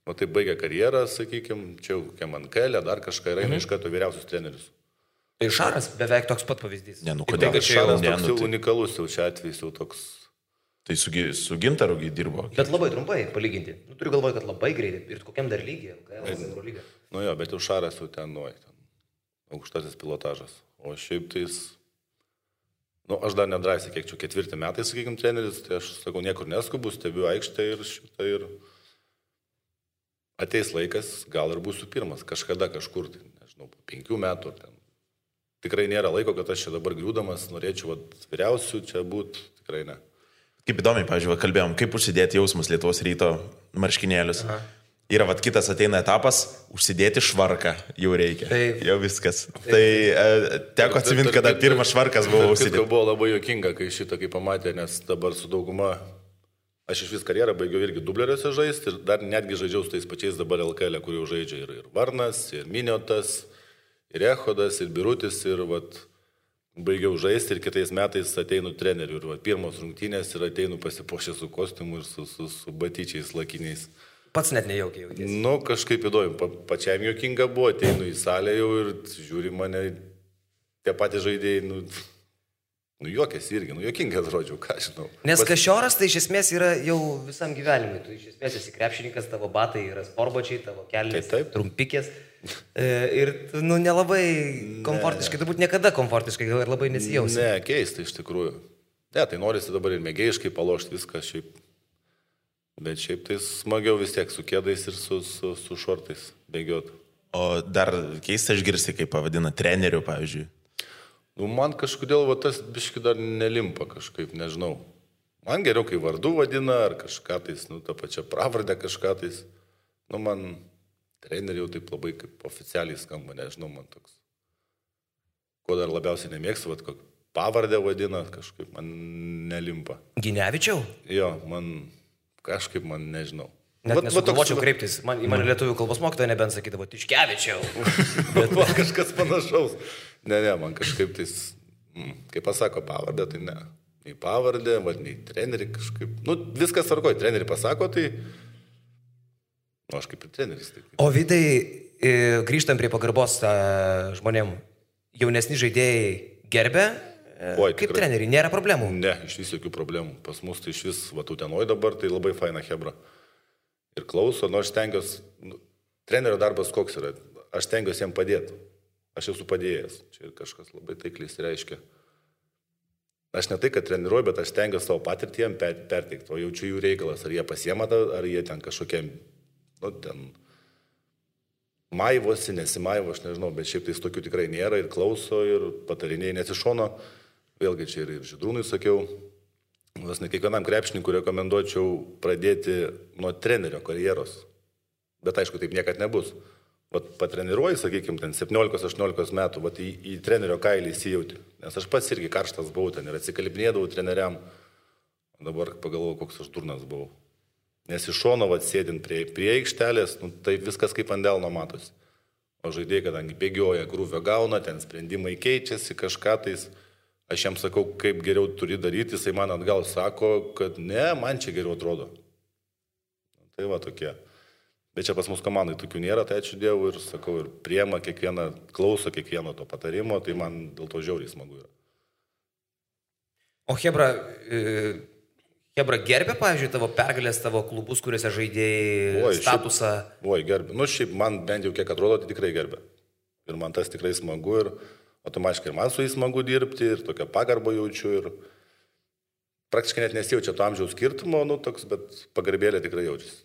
tai baigia karjerą, sakykime, čia jau kokia man kelė, dar kažką yra, iš karto vyriausius trenerius. Tai Šaras beveik toks pat pavyzdys. Ne, kodėl? Šaras toks jau unikalus, jau čia atvejs jau toks. Tai su Gintaru dirbo. Bet labai trumpai palyginti. Turiu galvoje, kad labai greitai. Ir kokiam dar lygiai? Jo, bet jau Šaras jau ten aukštasis pilotažas. O šiaip tais, aš dar nedrasiai, kiek čia 4 metai, sakykime, treneris, tai aš sakau, niekur neskubu, stebiu aikštę ir ateis laikas, gal ir būsiu pirmas, kažkada kažkur, tai, nežinau, po 5 metų. Ten. Tikrai nėra laiko, kad aš čia dabar griūdamas norėčiau vyriausių čia būti, tikrai ne. Kaip įdomiai, pavyzdžiui, kalbėjom, kaip užsidėti jausmus Lietuvos Ryto marškinėlius. Yra kitas ateina etapas, užsidėti švarką jau reikia. Taip. Jau viskas. Taip. Tai teko atsiminti, kada pirmas švarkas buvo užsidėti. Tai buvo labai juokinga, kai šitą kaip pamatė, nes dabar su dauguma, aš iš vis karjerą baigiau irgi dubleriuose žaisti ir dar netgi žaidžiau su tais pačiais dabar LKL, kur jau žaidžia ir Varnas, ir Miniotas, ir Echodas, ir Birutis, ir baigiau žaisti ir kitais metais ateinu treneriu. Ir pirmos rungtynės ir ateinu pasipuošę su kostiumu ir su batyčiais lakiniais. Pats net nejaukiai jautėsi. Kažkaip įdomu, pačiam juokinga buvo, ateinu į salę jau ir žiūri mane, tie patys žaidėjai, juokėsi irgi, juokingai atrodžiau, ką žinau. Nes Kašioras tai iš esmės yra jau visam gyvenimui. Tu iš esmės esi krepšininkas, tavo batai yra sportbačiai, tavo kelnės trumpikės. Ir nelabai komfortiškai, turbūt niekada komfortiškai ir labai nesijausi. Ne, keista iš tikrųjų. Ne, tai norisi dabar ir mėgėjiškai palošti viską šiaip. Bet šiaip tai smagiau vis tiek su kėdais ir su šortais bėgiot. O dar keista išgirsti, kaip pavadina treneriu, pavyzdžiui. Man kažkodėl tas biški dar nelimpa kažkaip, nežinau. Man geriau, kai vardu vadina ar kažką tais, tą pačią pravardę kažką tais. Man treneriai jau taip labai kaip oficialiai skamba, nežinau, man toks. Ko dar labiausiai nemėgstu, kokį pavardę vadina, kažkaip man nelimpa. Ginevičiau? Jo, kažkaip man nežinau. Net nesugalvočiau kreiptis. Į mane lietuvių kalbos mokytoja nebent sakydavo, Tiškevičiau. Bet kažkas panašaus. Ne, man kažkaip tais, kaip pasako pavardę, tai ne. Nei pavardę, nei treneriai kažkaip. Viskas tvarkoja, treneriai pasako, tai... aš kaip ir treneris. Taip. O Vidai, grįžtam prie pagarbos žmonėm, jaunesni žaidėjai gerbė? Kaip treneriai, nėra problemų? Ne, iš vis jokių problemų. Pas mus tai iš vis, Utenoj dabar, tai labai faina hebra. Ir klauso, aš stengiuosi, trenerio darbas koks yra, aš stengiuosi jam padėti. Aš esu padėjęs, čia kažkas labai taikliai reiškia. Aš ne tai, kad treniruoju, bet aš stengiuosi savo patirtį jam perteikti, o jaučiu jų reikalas, ar jie pasiema, ar jie ten kažkokie, ten maivosi, nesimaivo, aš nežinau, bet šiaip tai tokių tikrai nėra ir klauso ir patarinėjai nesišono. Vėlgi čia ir Žydrūnui sakiau, ne kiekvienam krepšininkui rekomenduočiau pradėti nuo trenerio karjeros. Bet aišku, taip niekad nebus. Patreniruoji, sakykime, ten 17-18 metų, į trenerio kailį įsijauti. Nes aš pats irgi karštas buvau ten ir atsikalbinėdavau treneriam. Dabar pagalvojau, koks aš durnas buvau. Nes iš šono sėdint prie aikštelės, tai viskas kaip ant delno matosi. O žaidėjai, kadangi bėgioja, krūvio gauna, ten sprendimai keičiasi, kažką tais. Aš jam sakau, kaip geriau turi daryti, jisai man atgal sako, kad ne, man čia geriau atrodo. Tai tokie. Bet čia pas mus komandai tokių nėra, tai ačiū Dievui ir sakau, ir priema kiekvieną, klauso kiekvieno to patarimo, tai man dėl to žiauriai smagu yra. O Hebra gerbė, pavyzdžiui, tavo pergalės, tavo klubus, kuriuose žaidėjai statusą? Gerbė. Nu, šiaip man bent jau kiek atrodo, tai tikrai gerbė. Ir man tas tikrai smagu ir automatiškai ir man su jais smagu dirbti ir tokią pagarbą jaučiu ir praktiškai net nesijaučia to amžiaus skirtumo, nu, toks, bet pagarbėlė tikrai jaučiasi.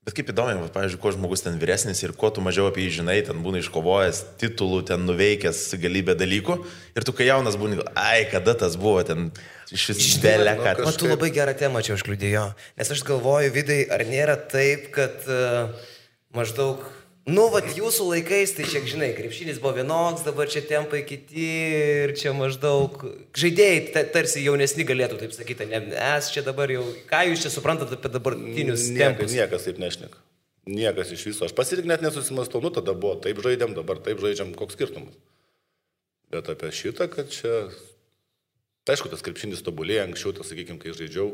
Bet kaip įdomu, pavyzdžiui, kuo žmogus ten vyresnis ir kuo tu mažiau apie jį žinai, ten būna iškovojęs titulų, ten nuveikęs galybę dalykų ir tu kai jaunas būni, kada tas buvo ten iš vis belė, kad... O tu labai gerą temą čia užkliudėjo, nes aš galvoju, Vidai, ar nėra taip, kad maždaug, nu, vat jūsų laikais, tai čia, žinai, krepšinis buvo vienoks, dabar čia tempai kiti ir čia maždaug žaidėjai tarsi jaunesni galėtų, taip sakyti, nes čia dabar jau, ką jūs čia suprantate apie dabartinius tempus? Niekas taip nešneka. Niekas iš viso. Aš pasirik net nesusimastau, nu tada buvo, taip žaidėm, dabar taip žaidžiam, koks skirtumas. Bet apie šitą, kad čia... Tai aišku, tas krepšinis tobulėja, anksčiau, tas, sakykime, kai žaidžiau,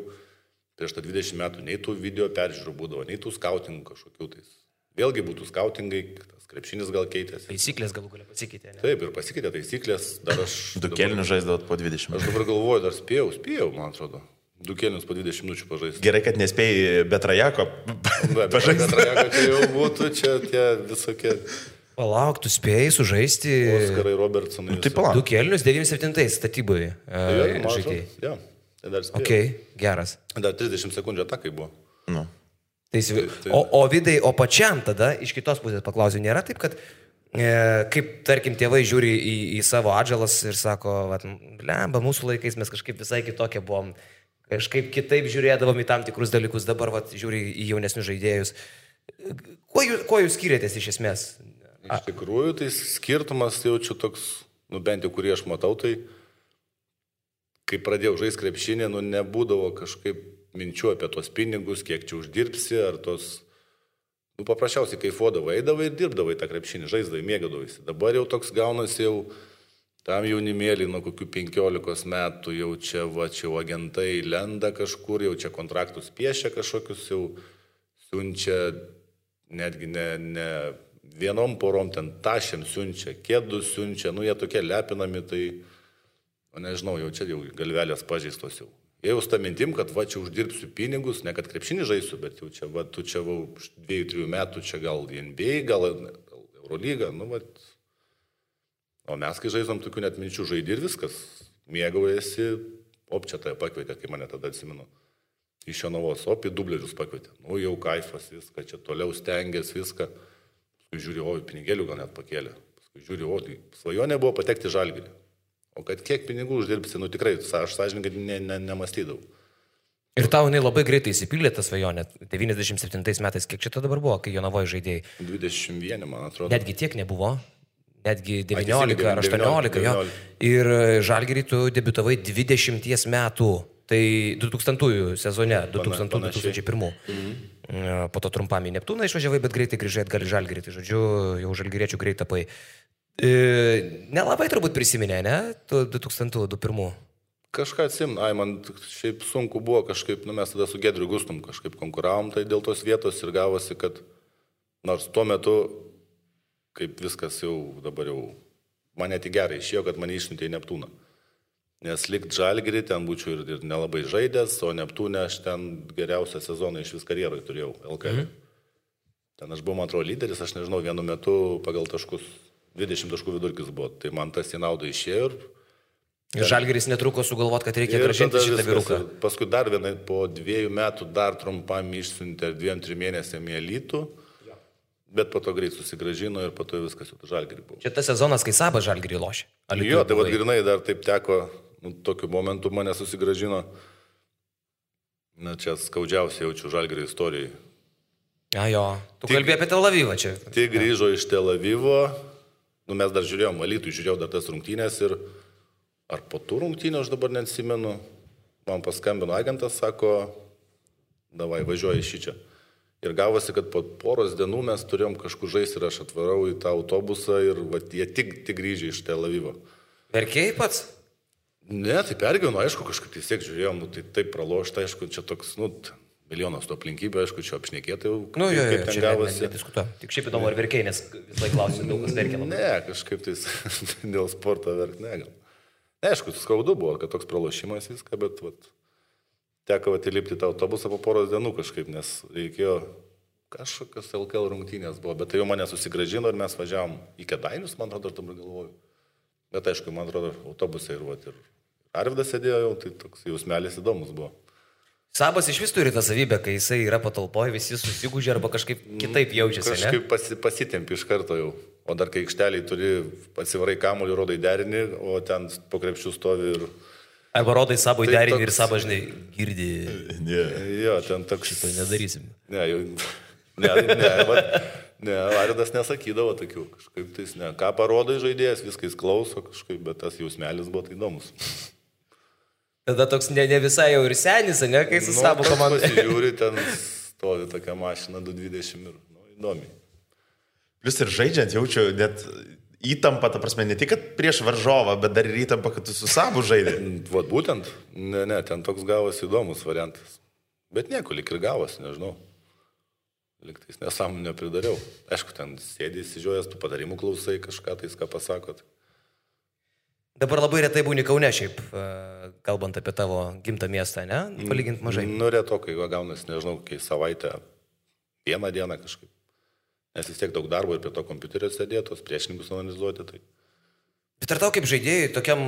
prieš tą 20 metų nei tų video peržiūrų būdavo, nei tų skautingų kažkokių tais. Vėlgi būtų skautingai, tas krepšinis gal keitėsi. Taisyklės galų galia pasikeitė, ne? Taip, ir pasikeitė taisyklės, dar aš... Du kelnius žaisdavot po 20 minučių. Aš dabar galvoju, dar spėjau, man atrodo. 2 kelnius po 20 minučių pažaisti. Gerai, kad nespėjai be Trajako pažaisti. Be Trajako čia jau būtų, čia tie visokie... Palauk, tu spėjai sužaisti... Oskarai Robertsonai. Tai palauk. 2 kelnius 97 statyboje žaidėjai. Jo, tai dar spėjau. Ok, geras. Dar 30 sekundžių atakai buvo. Nu. O Vidai, o pačiam tada, iš kitos pusės paklausiu, nėra taip, kad kaip, tarkim, tėvai žiūri į savo atžalas ir sako, blemba, mūsų laikais mes kažkaip visai kitokie buvom, kažkaip kitaip žiūrėdavom į tam tikrus dalykus, dabar žiūri į jaunesnius žaidėjus. Kuo jūs skiriatės iš esmės? Iš tikrųjų, tai skirtumas jaučiu toks, nu bent jau kurį aš matau, tai kai pradėjau žaisti krepšinį, nu nebūdavo kažkaip minčių apie tos pinigus, kiek čia uždirbsi, ar tos, nu paprasčiausiai kaifuodavai, eidavai ir dirbdavai tą krepšinį, žaisdavai, mėgadavaisi. Dabar jau toks gaunasi jau tam jaunimėlį nuo kokių 15 metų, jau čia agentai lenda kažkur, jau čia kontraktus piešia kažkokius, jau siunčia, netgi ne vienom porom ten tašėm siunčia, kėdus siunčia, nu jie tokie lepinami, tai, nežinau, jau čia jau galvelės pažeistos jau. Jie jau sta mintim, kad čia uždirbsiu pinigus, ne kad krepšinį žaisiu, bet jau čia, tu čia 2-3 metų, čia gal NBA, gal Eurolyga, nu o mes kai žaisam tokių net minčių, žaidži ir viskas, mėgaujasi, čia tai pakvietė, kai mane tada atsimenu, iš Jonavos, į dublerius pakvietė, nu jau kaifas viską, čia toliau stengiasi viską. Paskui žiūri, pinigėlių gal net pakėlė. Paskui žiūri, tai svajonė buvo patekti į Žalgirį. O kad kiek pinigų uždirbsi, nu tikrai, aš sąžininkai nemastydavau. Ir tau jinai labai greitai įsipildė tą svajonę. 97 metais, kiek čia dabar buvo, kai Jonavoje žaidėjai? 21, man atrodo. Netgi tiek nebuvo. Netgi 19 ar 18. Jo. Ir Žalgirį tu debiutavai 20 metų. Tai 2000 sezone, 2000-2001. Po to trumpam į Neptūną išvažiavai, bet greitai grįžai atgal į Žalgirį. Tai žodžiu, jau žalgiriečių greit tapai. Nelabai turbūt prisiminė, ne? 2001. Kažką atsimenu, man šiaip sunku buvo kažkaip, mes tada su Gedriu Gustum kažkaip konkuravom, tai dėl tos vietos ir gavosi, kad nors tuo metu, kaip viskas jau dabar jau, man net į gerai išėjo, kad mane išsiuntė į Neptūną. Nes likt Žalgirį ten būčiau ir nelabai žaidęs, o Neptūne aš ten geriausią sezoną iš vis karjeroje turėjau, LKL. Ten aš buvau, man atrodo, lyderis, aš nežinau, vienu metu pagal taškus 20 taškų vidurkis buvo, tai man tas į naudą išėjo ir Žalgiris netruko sugalvot, kad reikia grąžinti šitą vyruką. Paskui dar vienai, po 2 metų dar trumpam išsiuntė 2-3 mėnesiam į Alytų, bet po to greit susigrąžino ir po to viskas jau Žalgirį buvo. Čia tas sezonas, kai Sabas Žalgirį lošė. Jo, tai vad grinai dar taip teko, tokiu momentu mane susigrąžino. Na, čia skaudžiausiai jaučiu Žalgirio istorijai. Jo, tu kalbėjai apie Tel Avivą čia. Tik grįžo iš Tel Avivo, mes dar žiūrėjom, Alytui žiūrėjau dar tas rungtynės ir ar po tų rungtynių, aš dabar neatsimenu, man paskambino agentas, sako, davai, važiuoji iš čia. Ir gavosi, kad po poros dienų mes turėjom kažkur žaisti ir aš atvarau į tą autobusą ir jie tik grįžė iš Tel Avivo. Verkėjai pats? Ne, tai pergyvenu, aišku, kažkaip tiesiog žiūrėjom, tai taip pralošta, aišku, čia toks, milijonas to aplinkybių, aišku, čia apšnekėtai jau, Nu, jo, kaip ten čia gavosi. nediskutuoju. Tik šiaip įdomu, ar verkiai, nes vis laik klausiu, daug kas verkia labai. Ne, kažkaip tai dėl sporto verk, ne, gal. Ne, aišku, skaudu buvo, kad toks pralošimas viską, bet teko įlipti tą autobusą po poros dienų kažkaip, nes reikėjo kažkokios LKL rungtynės buvo, bet tai jau mane susigražino ir mes važiavom į Kėdainius, man atrodo, aš dabar galvoju. Bet aišku, man atrodo, autobusai ir Arvydas sėdėjo jau, tai toks jausmelis įdomus buvo. Sabas iš vis turi tą savybę, kai jisai yra patalpoje, visi susigūžia arba kažkaip kitaip jaučiasi. Kažkaip pasitempi iš karto jau. O dar kai aikšteliai turi, atsivarai kamuolį, rodai derinį, o ten po krepšių stovi ir... Arba rodai Sabui Tai derinį toks- ir Sabas, žinai, girdi. Jo, ten toks... Šito nedarysim. Ne, Aridas nesakydavo tokių, kažkaip tais ne. Ką parodai žaidėjas, viskas klauso kažkaip, bet tas jausmelis buvo tai įdomus. Tada toks ne visai jau ir senis, ne, kai su Sabu komanda. Pasižiūri, ten stovi tokia mašina 220 ir įdomiai. Plius ir žaidžiant jaučiu net įtampą, ta prasme, ne tik kad prieš varžovą, bet dar ir įtampą, kad tu su Sabu žaidė. Vat būtent, ne, ten toks gavosi įdomus variantas. Bet nieko, lik ir gavosi, nežinau. Liktais nesąmonę nepridariau. Aišku, ten sėdė įsižiojęs, tu padarimų klausai kažką, tais ką pasakot. Dabar labai retai būni Kaune šiaip, kalbant apie tavo gimtą miestą, ne? Palyginti mažai. Nu, retokai, gaunasi, nežinau, kai savaitę, vieną dieną kažkaip. Nes vis tiek daug darbo ir prie to kompiuterio sėdėtos, priešininkus analizuoti. Tai... Bet ar tau kaip žaidėjai, tokiam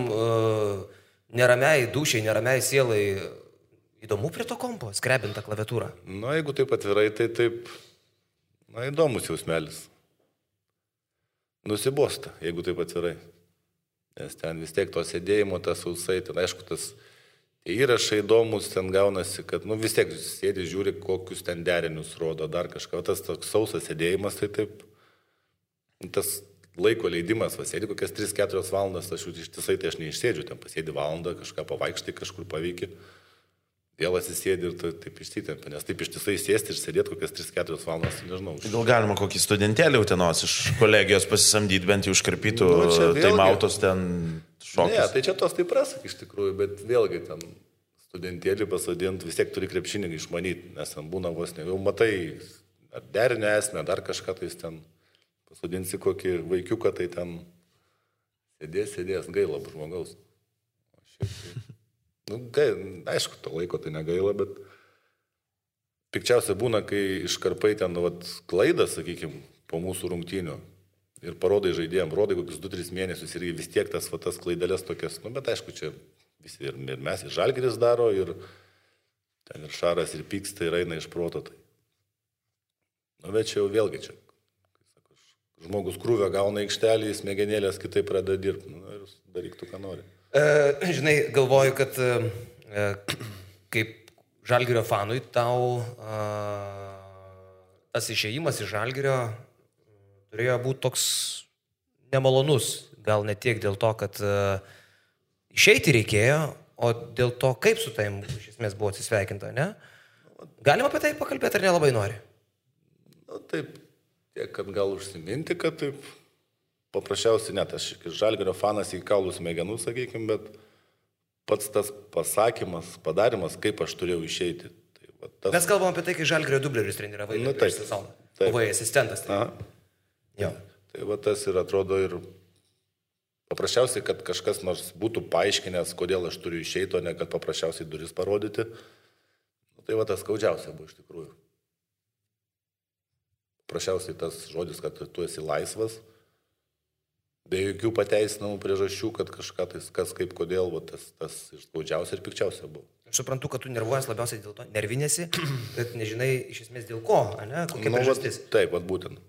neramiai dušiai, neramiai sielai, įdomu prie to kompo, skrebintą klaviatūrą? Nu, jeigu taip atvirai, tai taip, įdomus jausmelis. Nusibosta, jeigu taip atvirai. Nes ten vis tiek to sėdėjimo, tas sausai, ten aišku, tas įrašai įdomus, ten gaunasi, kad, vis tiek sėdi, žiūri, kokius ten derinius rodo, dar kažką. Tas toks sausas sėdėjimas, tai taip, tas laiko leidimas, sėdi kokias 3-4 valandas, aš ištisai tai aš neišsėdžiu, ten pasėdi valandą, kažką pavaikštai, kažkur paveiki, vėl atsisėdi ir taip išsitempia, nes taip ištisai sėsti ir sėdėti kokias 3-4 valandas, nežinau. Gal galima kokį studentėlį Utenos iš kolegijos pasisamdyti, bent jau užkarpytų taimautos ten šokius. Ne, tai čia tos taip prasak iš tikrųjų, bet vėlgi ten studentėlį pasadinti, vis tiek turi krepšinį išmanyti, nes ten būna vos ne, jau matai, ar derinę esmę, dar kažką tai ten pasadinsi kokį vaikiuką, tai ten sėdės, gaila žmogaus. Aišku, to laiko tai negaila, bet pikčiausia būna, kai iškarpai ten klaidą, sakykime, po mūsų rungtynių ir parodai žaidėjim, rodai kokius 2-3 mėnesius ir vis tiek tas klaidelės tokias, bet aišku, čia visi ir mes, ir Žalgiris daro, ir ten ir Šaras, ir pyksta, ir eina iš proto. Tai. Bet čia jau vėlgi čia. Žmogus krūvę gauna aikštelį, smegenėlės kitaip pradeda dirbti ir daryk tu, ką nori. Žinai, galvoju, kad kaip Žalgirio fanui tau tas išėjimas iš Žalgirio turėjo būti toks nemalonus. Gal ne tiek dėl to, kad išeiti reikėjo, o dėl to, kaip su taim iš esmės buvo atsisveikinta, ne? Galima apie tai pakalbėti ar nelabai nori? Taip, tiek, kad gal užsiminti, kad taip paprasčiausiai net aš Žalgirio fanas į kaulų smegenų, sakykime, bet pats tas pasakymas, padarimas, kaip aš turėjau išeiti. Tai, tas... Mes kalbam apie tai, kai Žalgirio dublerius treniravai prieš sezoną. Buvai asistentas. Tai tas ir atrodo ir paprasčiausiai, kad kažkas nors būtų paaiškinęs, kodėl aš turiu išeiti, o ne kad paprasčiausiai duris parodyti. Tai tas skaudžiausia buvo iš tikrųjų. Paprasčiausiai tas žodis, kad tu esi laisvas, be jokių pateisinamų priežasčių, kad kažką tai kas kaip kodėl, tas ir skaudžiausia ir pikčiausia buvo. Aš suprantu, kad tu nervuojas labiausiai dėl to, nervinėsi, bet nežinai iš esmės dėl ko, ne? Kokia priežastis. Taip, būtent.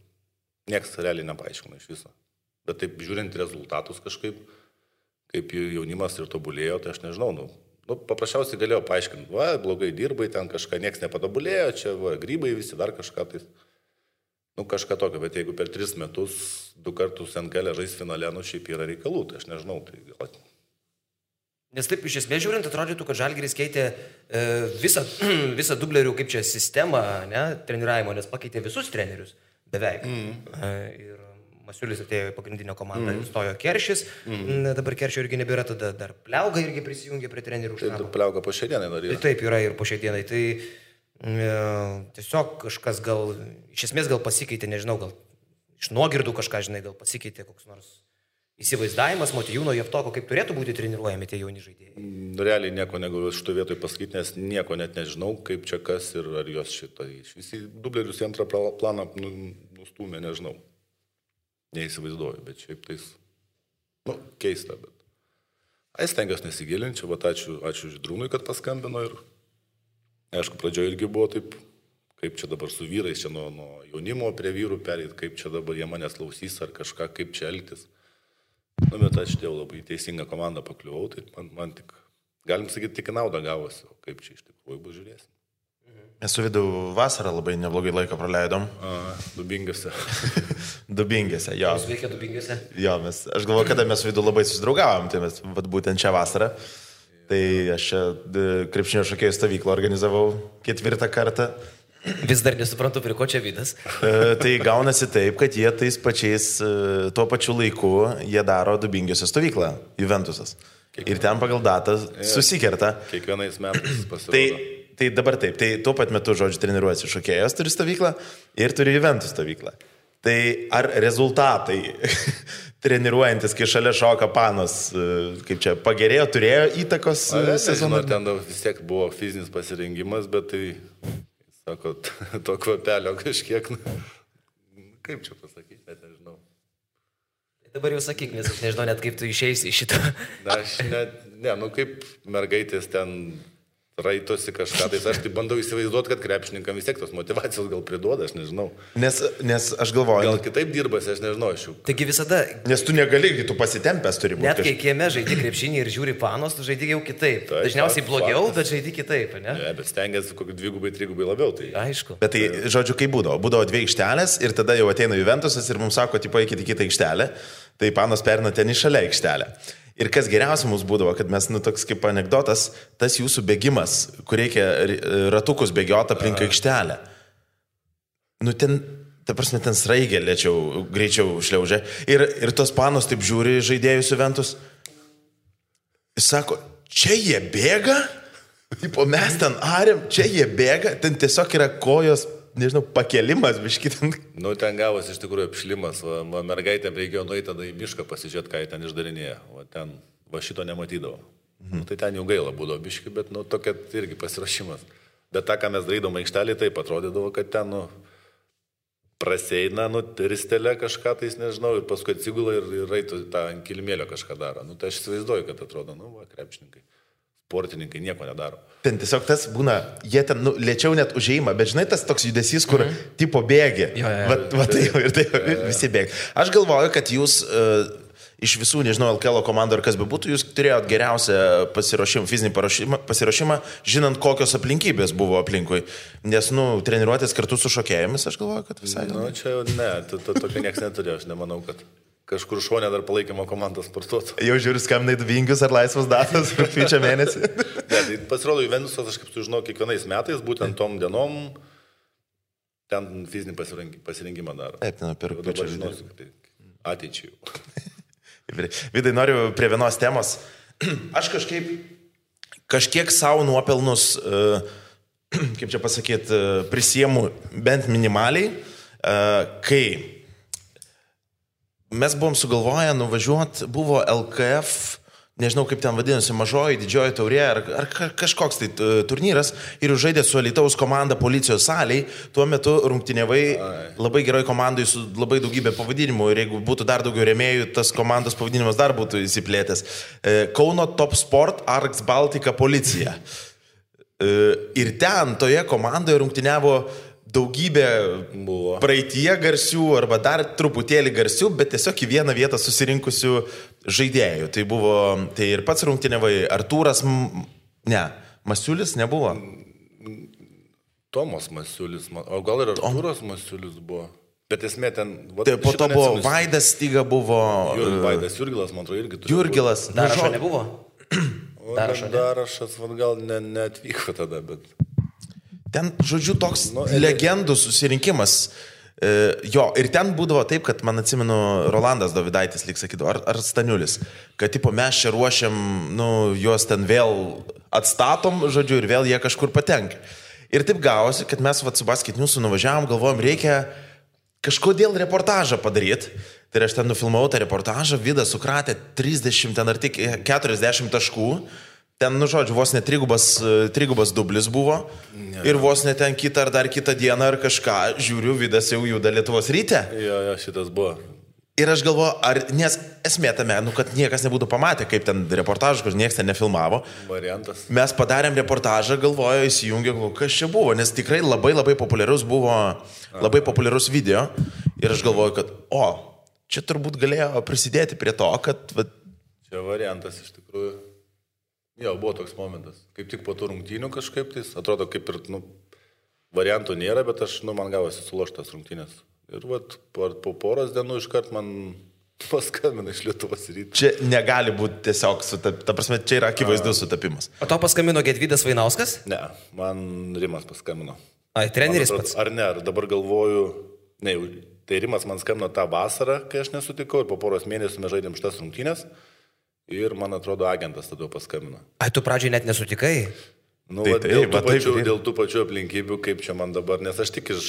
Niekas realiai nepaaiškina iš viso. Bet taip žiūrint rezultatus kažkaip, kaip jaunimas ir tobulėjo, tai aš nežinau, paprasčiausiai galėjau paaiškinti, blogai dirbai, ten kažką niekas nepatobulėjo, čia grybai visi dar kažką tai. Kažką tokio, bet jeigu per 3 metus 2 kartus NKL žais finale, šiaip yra reikalų, tai aš nežinau, tai gal... Nes taip iš esmės žiūrint, atrodytų, kad Žalgiris keitė visą dublerių, kaip čia, sistemą, ne, treniravimo, nes pakeitė visus trenerius, beveik. Ir Masiulis atėjo į pagrindinę komandą, stojo Keršis, dabar Keršio irgi nebėra, tada dar Pliauga irgi prisijungė prie trenerių štabo. Tai Pliauga po šiai dienai dar yra. Taip, yra ir po šiai dienai. Tai Tiesiog kažkas gal, iš esmės gal pasikeitė, nežinau, gal iš nuogirdų kažką, žinai, gal pasikeitė koks nors įsivaizdavimas Motiejūno Javtoko, kaip turėtų būti treniruojami tie jauni žaidėjai. Realiai nieko negaliu šito vietoj pasakyti, nes nieko net nežinau, kaip čia kas ir ar jos šitą. Visi dublerius į antrą planą nustūmė, nežinau. Neįsivaizduoju, bet šiaip tais, keista, bet. Stengiuosi nesigilinti, va ačiū Žydrūnui, kad paskambino ir, aišku, pradžioje irgi buvo taip, kaip čia dabar su vyrais, čia nuo jaunimo prie vyrų perėti, kaip čia dabar jie manęs klausys ar kažką, kaip čia elgtis. Bet aš dėl labai teisingą komandą pakliuvau, tai man tik, galim sakyti, tik naudą gavosi, o kaip čia iš tikrųjų bus žiūrėsim. Mes su Vidu vasarą labai neblogai laiką praleidom. Dubingėse. Dubingėse, jo. Jūs veikia Dubingėse? Jo, aš galvoju, kada mes su Vidu labai susidraugavom, tai mes būtent šią vasarą. Tai aš čia krepšinio šokėjų stovyklą organizavau 4 kartą. Vis dar nesuprantu, prie ko čia Vidas. Tai gaunasi taip, kad jie tais pačiais, tuo pačiu laiku, jie daro Dubingėse stovyklą, Juventusas. Ir ten pagal datą susikerta. Kiekvienais metais pasirodo. Tai dabar taip, tai tuo pat metu, žodžiu, treniruojasi šokėjas, turi stovyklą ir turi Juventus stovyklą. Tai ar rezultatai treniruojantis, kai šalia šoka Panos, kaip čia, pagerėjo, turėjo įtakos sezonui? Ten vis tiek buvo fizinis pasirengimas, bet tai, sako, to kvapelio kažkiek, kaip čia pasakyti, net nežinau. Dabar jau sakyk, nes aš nežinau net kaip tu išeisi iš šitą. Aš net, kaip mergaitės ten raitosi kažką, tai aš tai bandau įsivaizduoti, kad krepšininkam vis tiek tos motivacijos gal priduoda, aš nežinau. Nes aš galvoju... Gal kitaip dirbasi, aš nežinau, aš jau. Taigi visada... Nes tu negali, tu pasitempęs turi būti. Net kai kieme žaidi krepšinį ir žiūri Panos, tu žaidi jau kitaip. Tai, dažniausiai blogiau, bet žaidi kitaip, ne? Ne, bet stengiasi kokį 2-3 labiau, tai... Aišku. Bet tai, žodžiu, kaip būdavo? Būdavo 2 aikštelės ir tada jau ateina Juventusas ir mums sako, tipo, eikite į kitą aikštelę, tai Panos perina ten į šalia aikštelę. Ir kas geriausia mums būdavo, kad mes, toks kaip anekdotas, tas jūsų bėgimas, kur reikia ratukus bėgioti aplink aikštelę. Ten, ta prasme, ten sraigė greičiau šliaužia. Ir tos Panos taip žiūri žaidėjus Juventus. Jis sako, čia jie bėga? Tipo, mes ten arėm, čia jie bėga? Ten tiesiog yra kojos, nežinau, pakelimas, biškitant. Ten gavosi iš tikrųjų apšlimas, mergaitėm reikėjo nueiti tada į mišką pasižiūrėti, ką jie ten išdarinėja, ten šito nematydavo. Tai ten jau gaila būdavo biški, bet tokia irgi pasirašymas. Bet tą, ką mes darydom aikštelį, taip atrodydavo, kad ten praseina, ristelė kažką, tai nežinau, ir paskui atsigula ir raitų tą ant kilimėlio kažką daro. Tai aš įsivaizduoju, kad atrodo, krepšininkai. Sportininkai nieko nedaro. Ten tiesiog tas būna, jie ten lėčiau net užeima, bet žinai tas toks judesys, kur tipo bėgi. Visi bėgi. Aš galvoju, kad jūs iš visų, nežinau, LKL komandų ar kas bebūtų, jūs turėjot geriausią fizinį pasiruošimą, žinant, kokios aplinkybės buvo aplinkui. Nes, treniruotės kartu su šokėjomis, aš galvoju, kad visai... Čia ne, tokio nieks neturėjo, aš nemanau, kad... Kažkur šonė dar palaikymo komandą sportuotų. Jau žiūri, skambinai Dubingius ar laisvas datas rugpjūčio mėnesį. Tai pasirodo, Juventusas, aš kaip sužinau, kiekvienais metais, būtent tom dienom, ten fizinį pasirinkimą daro. Taip, per rugpjūčio. Dabar žinosiu, kad tai ateičiai. Vidai, noriu prie vienos temos. Aš kažkiek savo nuopelnus, kaip čia pasakyti, prisiemu bent minimaliai, kai mes buvom sugalvoję nuvažiuoti, buvo LKF, nežinau kaip ten vadinosi, mažoji, didžioji taurė, ar kažkoks tai turnyras, ir žaidė su Alytaus komanda Policijos salėj, tuo metu rungtyniavai labai geroj komandai su labai daugybė pavadinimų, ir jeigu būtų dar daugiau rėmėjų, tas komandos pavadinimas dar būtų įsiplėtęs. Kauno Top Sport Arks Baltica Policija. Ir ten, toje komandoje rungtyniavo daugybė praeitie garsių arba dar truputėlį garsių, bet tiesiog į vieną vietą susirinkusių žaidėjų. Tai ir pats rungtyniavai, Artūras, Masiulis nebuvo. Tomas Masiulis, o gal ir Artūras Masiulis buvo. Bet esmė ten... Po to buvo Vaidas Styga buvo... Vaidas Jurgilas, man atrodo, irgi turėjo. Jurgilas. Darašo nebuvo? Darašas, gal neatvyko tada, bet... Ten, žodžiu, toks legendų susirinkimas. Jo, ir ten būdavo taip, kad, man atsimenu, Rolandas Dovidaitis, lyg sakydavo, ar Staniulis, kad, tipo, mes čia ruošiam, juos ten vėl atstatom, žodžiu, ir vėl jie kažkur patenka. Ir taip gavosi, kad mes su Basketniusu nuvažiavom, galvojom, reikia kažkodėl reportažą padaryti. Tai aš ten nufilmavau tą reportažą, Vidas sukratė 30 ten ar tik 40 taškų. Ten, žodžiu, vos ne trigubas dublis buvo. Ir vos ne ten kitą ar dar kitą dieną ar kažką, žiūriu, Vidas jau juda Lietuvos Ryte. Jo, šitas buvo. Ir aš galvoju, nes esmė tame, kad niekas nebūtų pamatę, kaip ten reportažas, kur niekas ten nefilmavo. Variantas. Mes padarėm reportažą, galvoju, įsijungė, kas čia buvo, nes tikrai labai populiarus buvo, labai populiarus video. Ir aš galvoju, kad, čia turbūt galėjo prisidėti prie to, kad... Čia variantas iš tikrųjų. Jo, buvo toks momentas. Kaip tik po tų rungtynių kažkaip, tai atrodo, kaip ir, variantų nėra, bet man gavosi suloštas rungtynės. Ir po poros dienų iškart man paskambino iš Lietuvos Ryto. Čia negali būti tiesiog, ta prasme, čia yra akivaizdus sutapimas. O tau paskambino Gedvydas Vainauskas? Ne, man Rimas paskambino. Ai, treneris pats? Ar ne, ar dabar galvoju, ne, tai Rimas man skambino tą vasarą, kai aš nesutikau, ir po poros mėnesių mes žaidėm šitas rungtynės. Ir, man atrodo, agentas tada paskambino. Ai, tu pradžiai net nesutikai? Dėl tų pačių aplinkybių, kaip čia man dabar, nes aš tik aš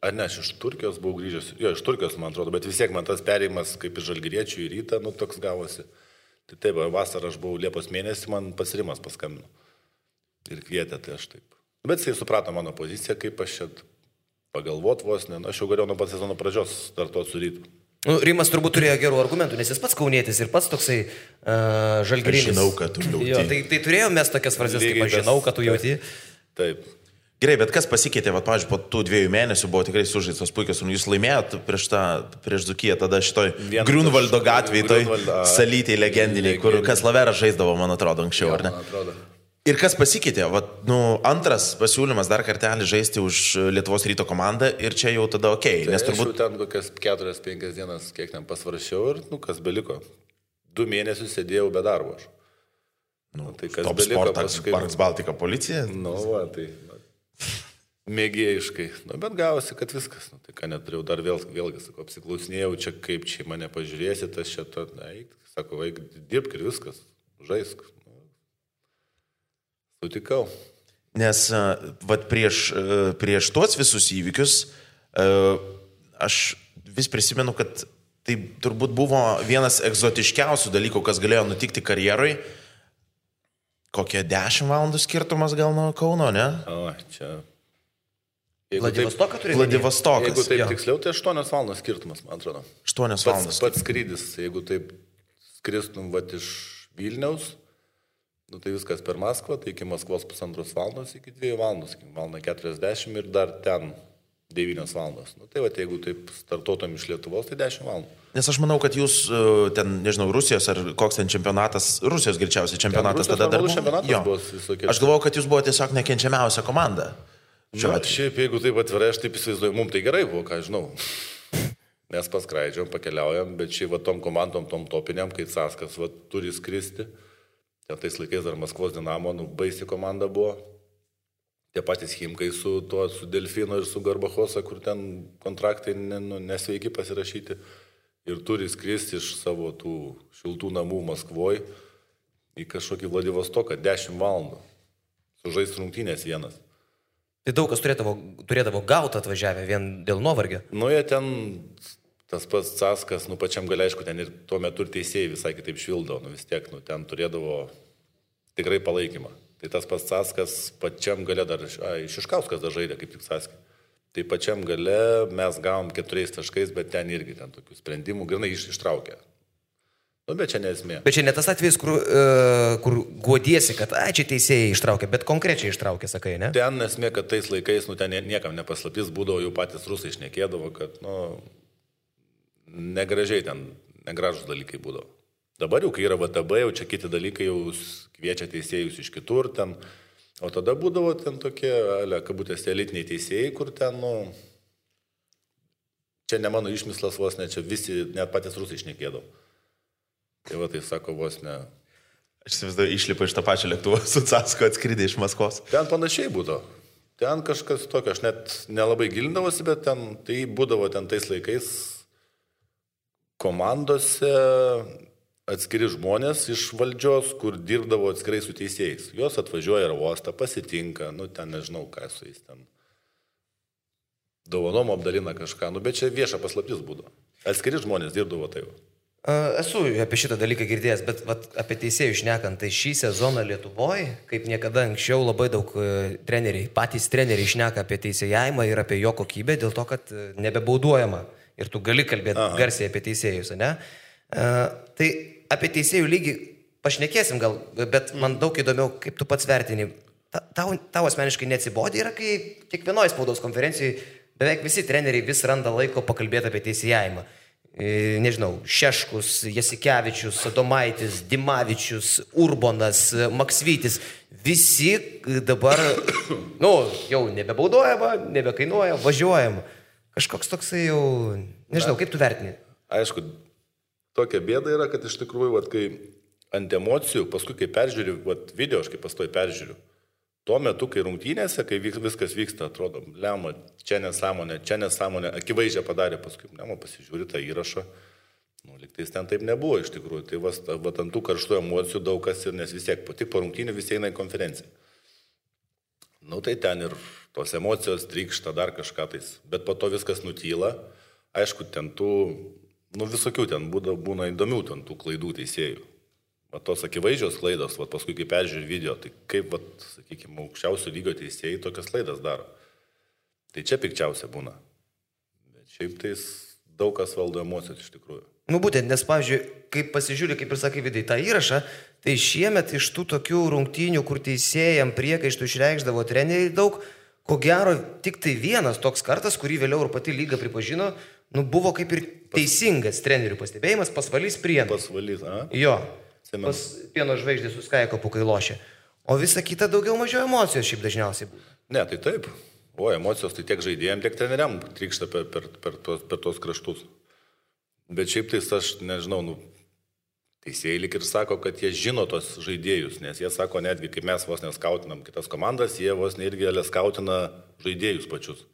iš Turkijos buvau grįžęs. Jo, iš Turkijos, man atrodo, bet vis tiek man tas perėjimas kaip iš Žalgiriečių į Rytą, toks gavosi. Tai taip, vasarą aš buvau Liepos mėnesį, man pats Rimas paskambino. Ir kvietė, tai aš taip. Bet jisai suprato mano poziciją, kaip aš čia pagalvot vos, aš jau galėjau nuo pat sezono pradžios startuoti su Rytu. Rimas turbūt turėjo gerų argumentų, nes jis pats kaunietis ir pats toksai žalgirinis. Aš žinau, kad tu jauti. Jo, tai turėjom mes tokias frazes, kaip aš žinau, kad tu jauti. Taip. Gerai, bet kas pasikeitė, pavyzdžiui, po tų 2 mėnesių buvo tikrai sužaistos puikios, jūs laimėjot prieš Dzūkiją, tada šitoj Grunvaldo gatvėje, toj salytėj legendiniai, kur Kaslaveras žaisdavo, man atrodo, anksčiau, ar ne? Ir kas pasikeitė, antras pasiūlymas dar kartelį žaisti už Lietuvos Ryto komandą ir čia jau tada okei. Tai nes turbūt... Aš jau ten kokias 4-5 dienas, kiek ten pasvaršiau ir, kas beliko. 2 mėnesius sėdėjau be darbo aš. Tai kas Top beliko Sportas, Parks Baltika policija. Tai... Mėgėjiškai. Bet gavosi, kad viskas. Tai ką neturėjau dar vėlgi, sakau, apsiklausinėjau, čia kaip čia mane pažiūrėsit, aš čia to, sako, vaik, dirbk ir viskas, žaisk. Sutikau. Nes prieš tuos visus įvykius aš vis prisimenu, kad tai turbūt buvo vienas egzotiškiausių dalykų, kas galėjo nutikti karjeroj. Kokie 10 valandų skirtumas gal nuo Kauno, ne? Čia... Vladivostokas turėjo? Vladivostokas. Jeigu taip tiksliau, tai 8 valandos skirtumas, man atrodo. 8 valandos. Pats skrydis, jeigu taip skristum iš Vilniaus, tai viskas per Maskvą, tai iki Maskvos 1,5 valandos, iki 2 valandos, iki 1:40 ir dar ten 9 valandos. Tai jeigu taip startuotum iš Lietuvos, tai 10 valandų. Nes aš manau, kad jūs ten, nežinau, Rusijos ar koks ten čempionatas, Rusijos greičiausiai čempionatas tada dar buvo. Aš galvojau, kad jūs buvo tiesiog nekenčiamiausia komanda. Šiaip, jeigu taip atvirai, aš taip įsivaizduoju, mums tai gerai buvo, ką žinau. Mes paskraidžiam, pakeliaujam, bet šiaip tom komandom, tom topiniam, kai Caskas turi skristi. Ten tais laikais dar Maskvos Dinamo, baisi komanda buvo. Tie patys Chimkai su Delfino ir su Garbachosa, kur ten kontraktai nesveiki pasirašyti. Ir turi skristi iš savo tų šiltų namų Maskvoje į kažkokį Vladivostoką 10 valandų. Sužais rungtynės vienas. Tai daug kas turėdavo gauti atvažiavę vien dėl nuovargio. Jie ten, tas pats Caskas, pačiam gal aišku, ten ir tuo metu ir teisėjai visai kitaip švildavo, vis tiek, ten turėdavo tikrai palaikymą. Tai tas pats Caskas pačiam gale dar, Šiškauskas dar žaidė, kaip tik Caskas. Tai pačiam gale mes gavom 4 taškais, bet ten irgi ten tokių sprendimų grinai ištraukė. Bet čia nesmė. Bet čia ne tas atvejis, kur guodiesi, kad čia teisėjai ištraukė, bet konkrečiai ištraukė, sakai, ne? Ten nesmė, kad tais laikais, ten niekam nepaslaptis būdavo, jau patys rusai šnekėdavo, kad, negražiai ten, negražus dalykai būdavo. Dabar jau, kai yra VTB, jau čia kiti dalykai jau kviečia teisėjus iš kitur ten. O tada būdavo ten tokie, kabutėse, elitiniai teisėjai, kur ten, čia ne mano išmislas vos ne, čia visi, net patys rusai šnekėdavo. Tai tai sako vos ne. Aš įsivaizduoju, išlipa iš tą pačią lėktuvą su Casku atskridė iš Maskvos. Ten panašiai būdavo. Ten kažkas tokio, aš net nelabai gilindavosi, bet ten, tai būdavo ten tais laikais komandose atskiri žmonės iš valdžios, kur dirbdavo atskirai su teisėjais. Jos atvažiuoja ir uostą, pasitinka, ten nežinau, ką su jais ten. Dovanom apdalina kažką, bet čia vieša paslaptis būdavo. Atskiri žmonės dirbdavo tai. Esu apie šitą dalyką girdėjęs, bet apie teisėjų šnekant, tai šį sezoną Lietuvoje, kaip niekada anksčiau, labai daug patys treneriai šneka apie teisėjavimą ir apie jo kokybę, dėl to, kad nebebauduojama ir tu gali kalbėti garsiai apie teisėjus, ne? Tai apie teisėjų lygį pašnekėsim gal, bet man daug įdomiau, kaip tu pats vertini. Tau asmeniškai neatsibodė yra, kai kiekvienoje spaudos konferencijoje beveik visi treneriai vis randa laiko pakalbėti apie teisėjavimą. Nežinau, Šeškus, Jasikevičius, Adomaitis, Dimavičius, Urbonas, Maksvytis, visi dabar, jau nebebaudojama, nebekainuoja, važiuojama. Kažkoks toksai jau, nežinau, kaip tu vertini? Aišku, tokia bėda yra, kad iš tikrųjų, kai ant emocijų, paskui kai peržiūriu, video, aš kaip pastoju peržiūriu, tuo metu, kai rungtynėse, kai viskas vyksta, atrodo, lemma, čia nesąmonė, akivaizdžiai padarė, paskui lemma pasižiūri tą įrašą, lygtais ten taip nebuvo iš tikrųjų, tai ant tų karštų emocijų daug kas ir, nes vis tiek tik po rungtynių visi eina į konferenciją. Tai ten ir tos emocijos trykšta dar kažką tais, bet po to viskas nutyla, aišku, ten tų, visokių ten būna įdomių ten tų klaidų teisėjų. Tos akivaizdžios klaidos, paskui kai peržiūrė video, tai kaip, sakykime, aukščiausio lygio teisėjai tokias klaidas daro. Tai čia pikčiausia būna. Bet šiaip tais daug kas valdo emocijos iš tikrųjų. Būtent, nes, pavyzdžiui, kaip pasižiūrė, kaip ir sakai, vidai tą įrašą, tai šiemet iš tų tokių rungtynių, kur teisėjam priekaištų išreikšdavo treneriai daug, ko gero tik tai vienas toks kartas, kurį vėliau ir pati lyga pripažino, buvo kaip ir teisingas trenerių pastebėjimas, Pasvalys Prienas. Pasvalys, Jo. Pas Pieno žvaigždės su Skaikopu, kai lošia. O visa kita daugiau mažiau emocijos šiaip dažniausiai būna. Ne, tai taip. Emocijos tai tiek žaidėjim, tiek treneriam trykšta per tos kraštus. Bet šiaip tai aš nežinau, teisėjai lik ir sako, kad jie žino tos žaidėjus, nes jie sako netgi, kaip mes vos neskautinam kitas komandas, jie vos irgi skautina žaidėjus pačius.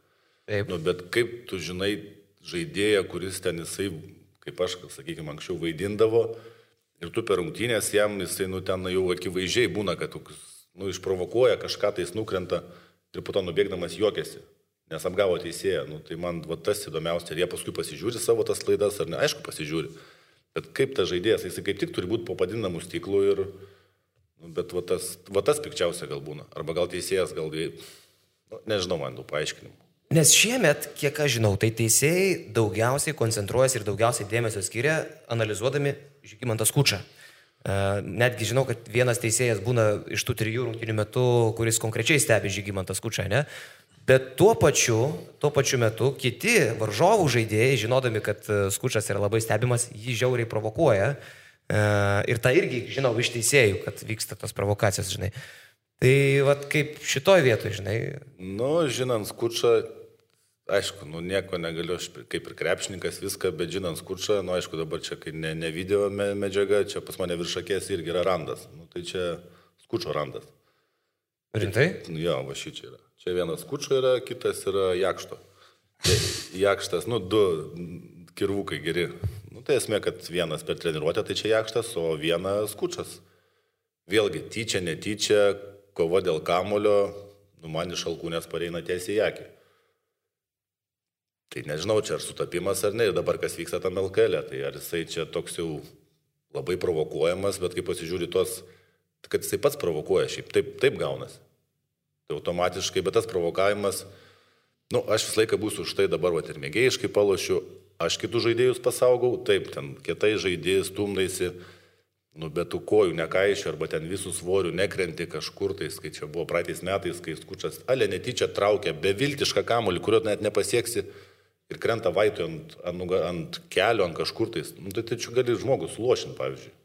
Taip. Bet kaip tu žinai žaidėją, kuris ten jisai, kaip aš, sakykime, anksčiau vaidindavo, ir tu per rungtynės jam, jisai ten jau akivaizdžiai būna, kad išprovokuoja, kažką tais nukrenta ir po to nubėgdamas juokiasi, nes apgavo teisėją. Tai man tas įdomiausia, ir jie paskui pasižiūri savo tas klaidas, ar ne, aišku pasižiūri. Bet kaip tas žaidėjas, jisai kaip tik turi būti po padidinamų stiklų ir, bet tas pikčiausia gal būna. Arba gal teisėjas, gal, nežinau man tų paaiškinimų. Nes šiemet, kiek aš žinau, tai teisėjai daugiausiai koncentruojasi ir daugiausiai dėmesio skiria analizuodami Žygimantą Skučą. Netgi žinau, kad vienas teisėjas būna iš tų 3 rungtynių metų, kuris konkrečiai stebi Žygimantą Skučą, ne? Bet tuo pačiu metu kiti varžovų žaidėjai, žinodami, kad Skučas yra labai stebimas, jį žiauriai provokuoja. Ir tą irgi žinau iš teisėjų, kad vyksta tos provokacijos, žinai. Tai kaip šitoj vietoj, žinai. Žinant Skučą, aišku, nieko negaliu, aš kaip ir krepšininkas viską, bet žinant Skučą, aišku, dabar čia, kai ne video medžiaga, čia pas mane virš akės irgi yra randas. Tai čia Skučo randas. Rimtai? Jo, va šičia yra. Čia vienas Skučo yra, kitas yra Jakšto. Jakštas, 2 kirvukai geri. Tai esmė, kad vienas per treniruotę, tai čia Jakštas, o vienas Skučas. Vėlgi, tyčia, netyčia, kova dėl kamulio, man iš alkūnės pareina tiesiai į akį. Tai nežinau, čia ar sutapimas ar ne, ir dabar kas vyksta tam LKL, tai ar jisai čia toks jau labai provokuojamas, bet kai pasižiūri tos, kad jisai pats provokuoja, šiaip taip gaunasi. Tai automatiškai, bet tas provokavimas, aš visą laiką būsiu už tai dabar, ir mėgėjiškai palošiu, aš kitus žaidėjus pasaugau, taip, ten kietai žaidėjai stumdaisi, bet tų kojų nekaišio, arba ten visų svorių nekrenti kažkur, tai kai čia buvo praeitais metais, kai Skučas netyčia traukia beviltišką kamuolį, kurio net nepasieksi ir krenta vaitų ant kelio, ant kažkur, tai čia gali žmogus lošinti, pavyzdžiui.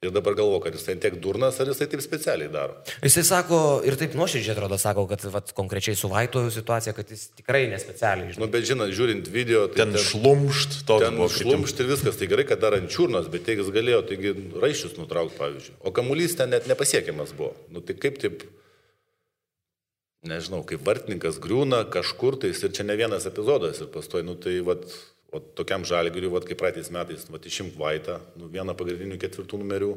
Ir dabar galvo, kad jisai tiek durnas, ar jisai taip specialiai daro. Jisai sako, ir taip nuoširdžiai atrodo, sako, kad konkrečiai su Vaitu situacija, kad jis tikrai nespecialiai. Bet žinot, žiūrint video, tai ten šlumšt, ten šlumšt ir viskas, tai gerai, kad dar ant čiurnos, bet jis galėjo, taigi raiščius nutraukti, pavyzdžiui. O kamuolys ten net nepasiekiamas buvo. Tai kaip taip, nežinau, kaip vartininkas griūna kažkur, tai ir čia ne vienas epizodas ir pastoji, O tokiam Žalgiriui, vat, kaip praeitais metais, vat, išimk Vaitą, vieną pagrindinių 4 numerių,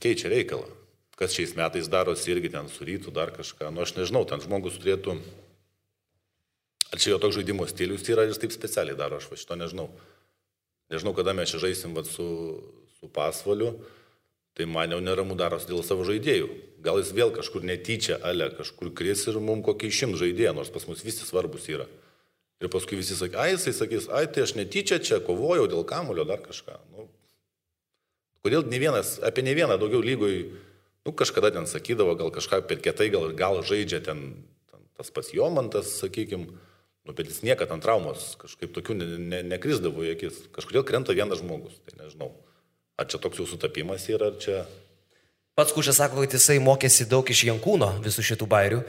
keičia reikalą. Kas šiais metais darosi irgi ten su Rytu, dar kažką. Aš nežinau, ten žmogus turėtų... Ar čia jo toks žaidimo stilius yra ir taip specialiai daro, aš šito nežinau. Nežinau, kada mes čia žaisim vat, su Pasvaliu, tai man jau neramu darosi dėl savo žaidėjų. Gal jis vėl kažkur netyčia, kažkur kris ir mums kokį 100 žaidėją, nors pas mus visi svarbus yra. Ir paskui visi sakys, jisai sakys, tai aš netyčia čia kovojau dėl kamulio, dar kažką. Kodėl apie ne vieną daugiau lygoj, kažkada ten sakydavo, gal kažką per kietai, gal žaidžia ten tas pats Jomantas, sakykim, bet jis niekad ant traumos kažkaip tokių nekrisdavo į akis. Kažkodėl krenta vienas žmogus, tai nežinau. Ar čia toks jau sutapimas yra, ar čia... Pats Kušas sako, kad jisai mokėsi daug iš Jankūno visų šitų bairių,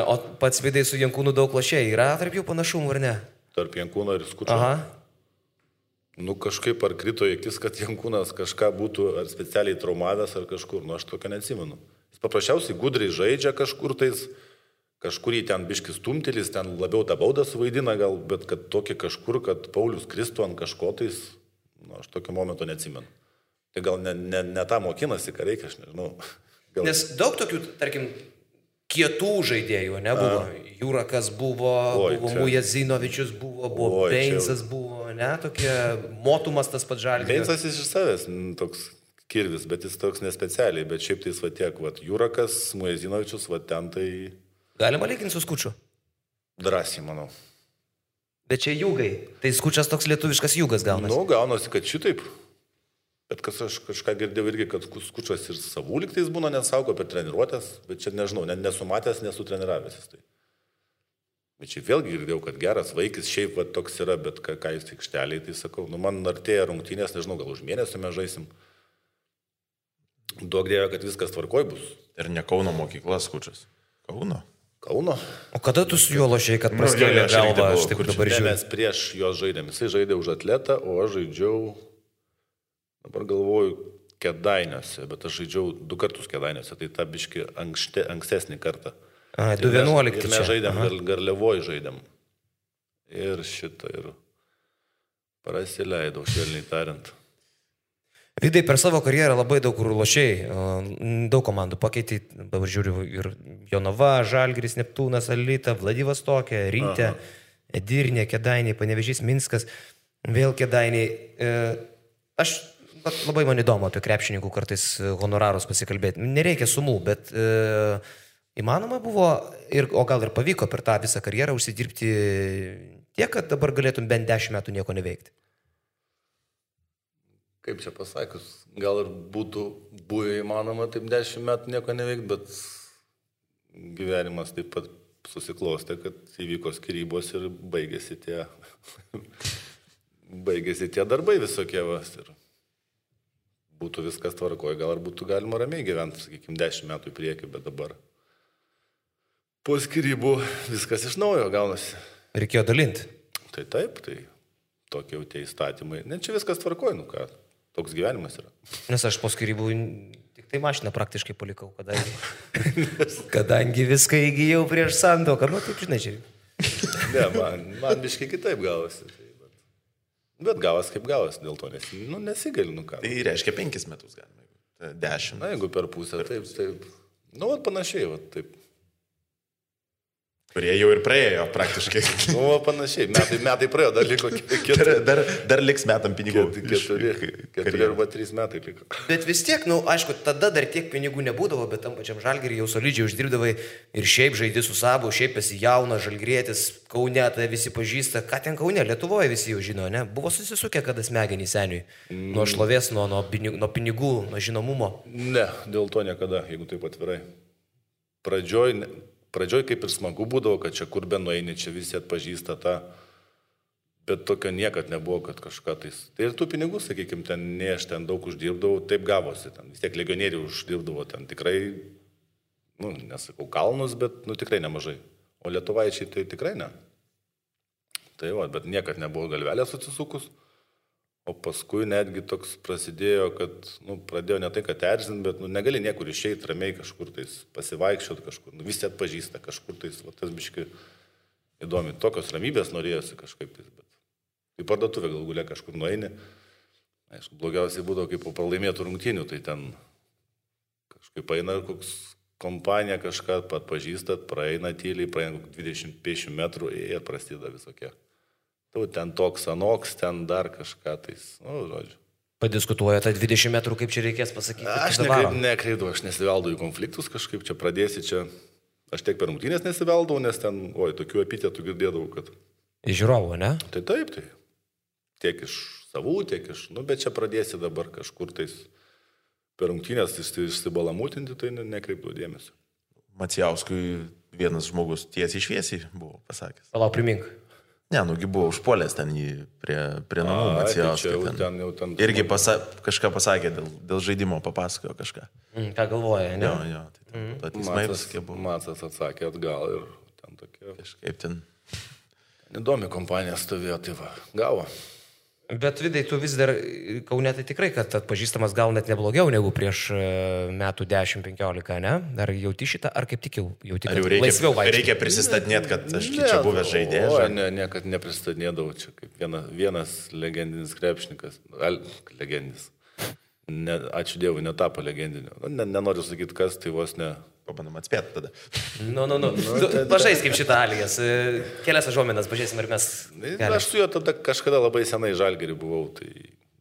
o pats Vidai su Jankūnu daug lošėjai. Yra tarp jų panašumų, ar ne? Tarp Jankūno ir Skučio? Aha. Kažkaip ar krito į akis, kad Jankūnas kažką būtų ar specialiai traumavęs ar kažkur, aš tokio neatsimenu. Jis paprasčiausiai gudriai žaidžia kažkur tais, kažkur į ten biškis stumtelis, ten labiau tą baudą suvaidina gal, bet kad tokie kažkur, kad Paulius kristų ant kažko tais, aš tokio momento neatsimenu. Tai gal ne tą mokinasi, ką reikia, aš nežinau. Gal... Nes daug tokių, tarkim, kietų žaidėjų nebuvo. Jurakas buvo Mujazinovičius buvo Beinsas buvo, tokie Motumas tas pats Žalgiris. Beinsas iš savęs toks kirvis, bet jis toks nespecialiai, bet šiaip tai tiek, Jurakas, Mujazinovičius, ten tai... Galima lyginti su Skučiu? Drąsiai, manau. Bet čia Jūgai, tai Skučas toks lietuviškas Jūgas gaunasi. Gaunasi, kad šitaip. Bet kas aš kažką girdėjau irgi, kad Skučas ir savų liktais būna nesaugo per treniruotės, bet čia nežinau, nesumatęs, nesutreniravęs. Tai. Bet čia vėlgi girdėjau, kad geras vaikis šiaip toks yra, bet ką jis aikšteliai, tai sakau, man artėja rungtynės, nežinau, gal už mėnesį mes žaisim. Duok Dieve, kad viskas tvarkoj bus. Ir ne Kauno mokykla Skučas. Kauno. O kada tu su juo lošiai, kad praskėlė galvą, aš taip dabar žiūriu? Mes prieš juos žaidėm, jisai žaidė už Atletą, o aš žaidžiau, dabar galvoju, Kėdainiuose, bet aš žaidžiau 2 kartus Kėdainiuose, tai tą biškį ankstesnį kartą. 2011 čia. Ir mes žaidėm, Garliavoj žaidėm. Ir šitą, ir prasileidau, švelniai tariant. Vidai, per savo karjerą labai daug kur lošiai, daug komandų pakeitė, dabar žiūriu, ir Jonava, Žalgiris, Neptūnas, Alyta, Vladivostokė, Rytė, Edirnė, Kėdainiai, Panevėžys, Minskas, vėl Kėdainiai. Aš labai man įdomu apie krepšininkų kartais honorarus pasikalbėti. Nereikia sumų, bet įmanoma buvo, o gal ir pavyko per tą visą karjerą užsidirbti tiek, kad dabar galėtum bent 10 metų nieko neveikti. Kaip čia pasakius, gal ir būtų buvę įmanoma taip 10 metų nieko neveikti, bet gyvenimas taip pat susiklostė, kad įvyko skyrybos ir baigėsi tie darbai visokie. Ir būtų viskas tvarkoje, gal ir būtų galima ramiai gyventi, sakykime, 10 metų į priekį, bet dabar po skyrybų viskas iš naujo gaunasi. Reikėjo dalinti. Tai taip, tai tokie jau tie įstatymai. Ne, čia viskas tvarkoje, ką. Toks gyvenimas yra. Nes aš po skyrybų tik tai mašiną praktiškai palikau, kadangi viską įgyjau prieš santuoką. Taip, žinai, čia. Ne, man biškai kitaip gavosi. Bet gavas kaip gavas, dėl to nesigali, ką. Tai reiškia 5 metus galima, 10. Na, jeigu per pusę, taip. Panašiai, taip. Kurie jau ir praėjo praktiškai. Panašiai. Metai praėjo, dar liko 4. Dar liks metam pinigų. 4 arba 3 metai liko. Bet vis tiek, aišku, tada dar tiek pinigų nebūdavo, bet tam pačiam Žalgiriui jau solidžiai uždirbdavai ir šiaip žaidži su Sabu, šiaip esi jaunas žalgirietis, Kaune tai visi pažįsta. Ką ten Kaune? Lietuvoje visi jau žino, ne? Buvo susisukę kada smegenį seniui. Nuo šlovės, nuo pinigų, nuo žinomumo. Ne, dėl to niekada, jeigu taip atvirai. Pradžioj kaip ir smagu būdavo, kad čia kur be nueini, čia visi atpažįsta tą, bet tokio niekad nebuvo, kad kažką tais. Tai ir tų pinigų, sakykime, ne aš ten daug uždirbdavau, taip gavosi, ten vis tiek legionierių uždirbdavo, ten tikrai, nesakau kalnus, bet tikrai nemažai. O lietuvaičiai tai tikrai ne. Tai bet niekad nebuvo galvelės atsisukus. O paskui netgi toks prasidėjo, kad, pradėjo ne tai, kad erzint, bet, negali niekur išeiti ramiai kažkur tais, pasivaikščiot kažkur, visi atpažįsta kažkur tais, tas biškai įdomi, tokios ramybės norėjosi kažkaip tais, bet į parduotuvę galų galia kažkur nueini. Aišku, blogiausiai būdavo, kaip po pralaimėtų rungtynių, tai ten kažkaip eina koks kompanija kažką pažįstat, praeina tyliai, praeina 20-50 metrų ir prasideda visokie. Tu ten toks anoks, ten dar kažką tais, žodžiu. Padiskutuoja tą 20 metrų, kaip čia reikės pasakyti. Aš nekreidau, aš nesiveldau į konfliktus kažkaip, čia pradėsi čia. Aš tiek per rungtynės nesiveldau, nes ten, tokių epitetų girdėdavau, kad... Iš žiūrovų, ne? Tai taip, tai. Tiek iš savų, tiek iš... bet čia pradėsi dabar kažkur tais per rungtynės išsibalamutinti, tai nekreipdavau dėmesio. Macijauskui vienas žmogus tiesiai šviesiai buvo pasakęs. Palauk, primink. Ne, nugi buvo užpuolęs ten jį prie namų Macijauskui. Ten. Irgi kažką pasakė, dėl žaidimo papasakojo kažką. Ką galvoja, ne? Jo, tai teismai paskė buvo. Macas atsakė atgal ir ten tokie... Kažkaip ten... Įdomi kompanija stovėjo, tai va, gavo. Bet Vidai, tu vis dar Kaune tai tikrai, kad atpažįstamas gal net neblogiau negu prieš metų 10-15, ne? Ar jauti šitą, ar kaip tik jauti, kad laisviau vaikščiai? Reikia prisistatinėti, kad aš čia buvęs žaidėjas. Niekad nepristatinėdavau, čia kaip vienas legendinis krepšininkas, legendinis. Ačiū Dievui, netapo legendiniu. Nenoriu sakyti, kas, tai vos ne... Pabandom atspėti tada. Pažais kaip šitą Alijas. Kelias žuomenas, pažiūrėsim, ar mes... Aš su juo tada kažkada labai senai Žalgirį buvau,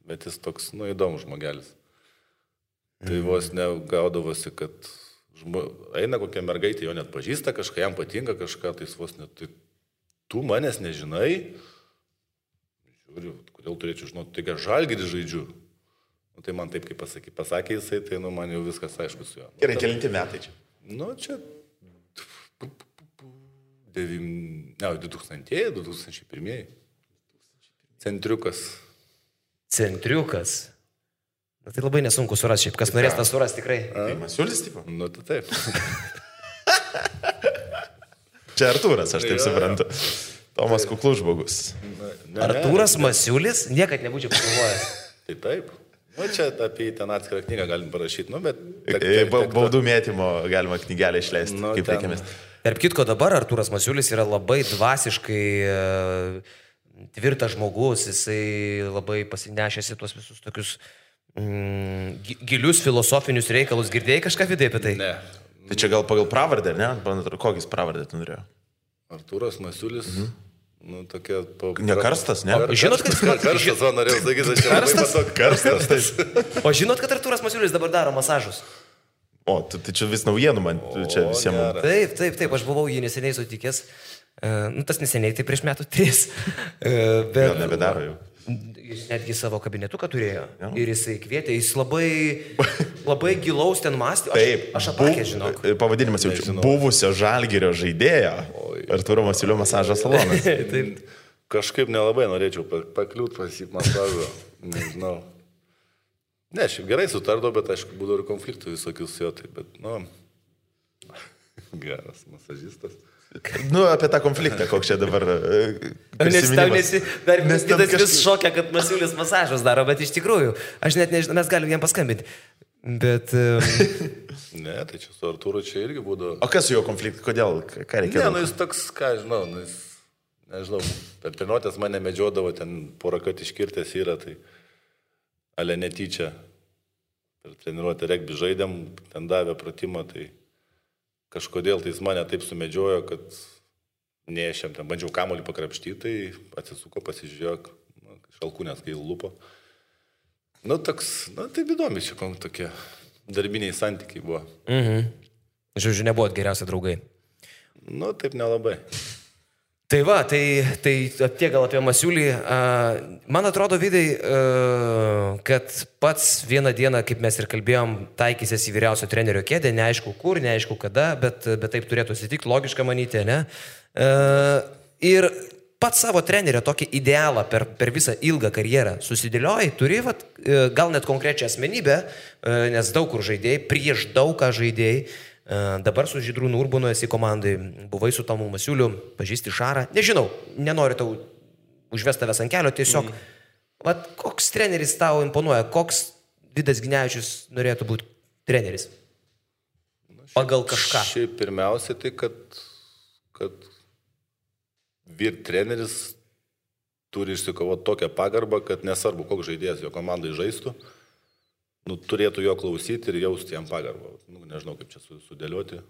bet jis toks, įdomus žmogelis. Tai vos negaudavosi, kad eina kokia mergaitė, jo net pažįsta kažką, jam patinka kažką, tai jis vos net... Tai tu manęs nežinai? Žiūriu, kodėl turėčiau žinoti, taigi Žalgirį žaidžiu. Tai man taip, kaip pasakė jisai, tai man jau viskas aišku su juo. Gerai, kelinti metai čia? Čia 2001. Centriukas. Tai labai nesunku surasti, šiaip kas norės tą surasti tikrai. Tai Masiulis, tipo? Tai taip. Čia Artūras, aš taip suprantu. Tomas kuklus žmogus. Artūras Masiulis? Niekad nebūčiau pagalvojęs. Tai taip. Čia apie ten atskirą knygą galim parašyti, bet... Baudų mėtymo galima knygelę išleisti, kaip reikėmės. Tarp kitko, dabar Artūras Masiulis yra labai dvasiškai tvirtas žmogus, jisai labai pasinešėsi tuos visus tokius gilius filosofinius reikalus. Girdėjai kažką Vidai apie tai? Ne. Tai čia gal pagal pravardę, ne? Kokis pravardę tu norėjo? Artūras Masiulis... tokia... Ne karstas, ne? Žinot, kad... Karstas, norėjau sakyti, aš čia labai matau. Karstas. O žinot, kad Artūras Masiulis dabar daro masažus? O, tai čia vis naujienų man, čia visiems. Taip, aš buvau jį neseniai sutikęs. Tas neseniai, tai prieš metų 3. Gal nebedaro jau. Jis netgi savo kabinetuką turėjo. Ja. Ir jisai kvietė, jis labai gilaus ten mąstė. Aš apakė, žinok. Pavadinimas jau buvusio Žalgirio žaidėjo. Artūro Masiulio masažo salonas. Taip. Kažkaip nelabai norėčiau pakliūt pas jį masažo. Nežinau. Ne, šiaip gerai sutardau, bet aišku, būdavo ir konfliktų visokius jo. Bet, geras masažistas. Apie tą konfliktą, koks čia dabar prisiminimas. Nes kitas vis šokia, kad Masiulis masažus daro, bet iš tikrųjų, aš net nežinau, mes galim jam paskambinti. Bet... Ne, tai čia su Artūru čia irgi būdavo. O kas su jo konfliktai, kodėl, ką reikėjo? Ne, jis toks, ką žinau, jis, nežinau, per treniruotės mane medžiodavo, ten porą kartų iškirtęs yra, tai ale netyčia. Per treniruotę regbį žaidėm, ten davė pratimą, tai... Kažkodėl tai jis mane taip sumedžiojo, kad nešėm, ten bandžiau kamuolį pakrapštyti, tai atsisuko, pasižiūrėjo, šalkūnės kai lupo. Taip įdomi čia tokie darbiniai santykiai buvo. Žodžiu, nebuvot geriausi draugai. Taip nelabai. Tai va, tai tiek gal apie Masiulį. Man atrodo, Vidai, kad pats vieną dieną, kaip mes ir kalbėjom, taikysies į vyriausio trenerio kėdę, neaišku kur, neaišku kada, bet taip turėtų atsitikti, logiška manyti, ne? Ir pats savo trenerio tokį idealą per visą ilgą karjerą susidėlioji, turi gal net konkrečią asmenybę, nes daug kur žaidėjai, prieš daug ką žaidėjai. Dabar su Žydrūnu Urbanu esi komandai, buvai su Tomu Masiuliu, pažįsti Šarą, nežinau, nenoriu tau užvesti tavęs ant kelio, tiesiog, koks treneris tau imponuoja, koks Vidas Ginevičius norėtų būti treneris? Pagal kažką. Šiaip pirmiausia, tai kad vyr treneris turi išsikovoti tokią pagarbą, kad nesvarbu, koks žaidėjas jo komandai žaistų, nu, turėtų jo klausyti ir jausti jam pagarbą. Nu, nežinau, kaip čia sudėlioti.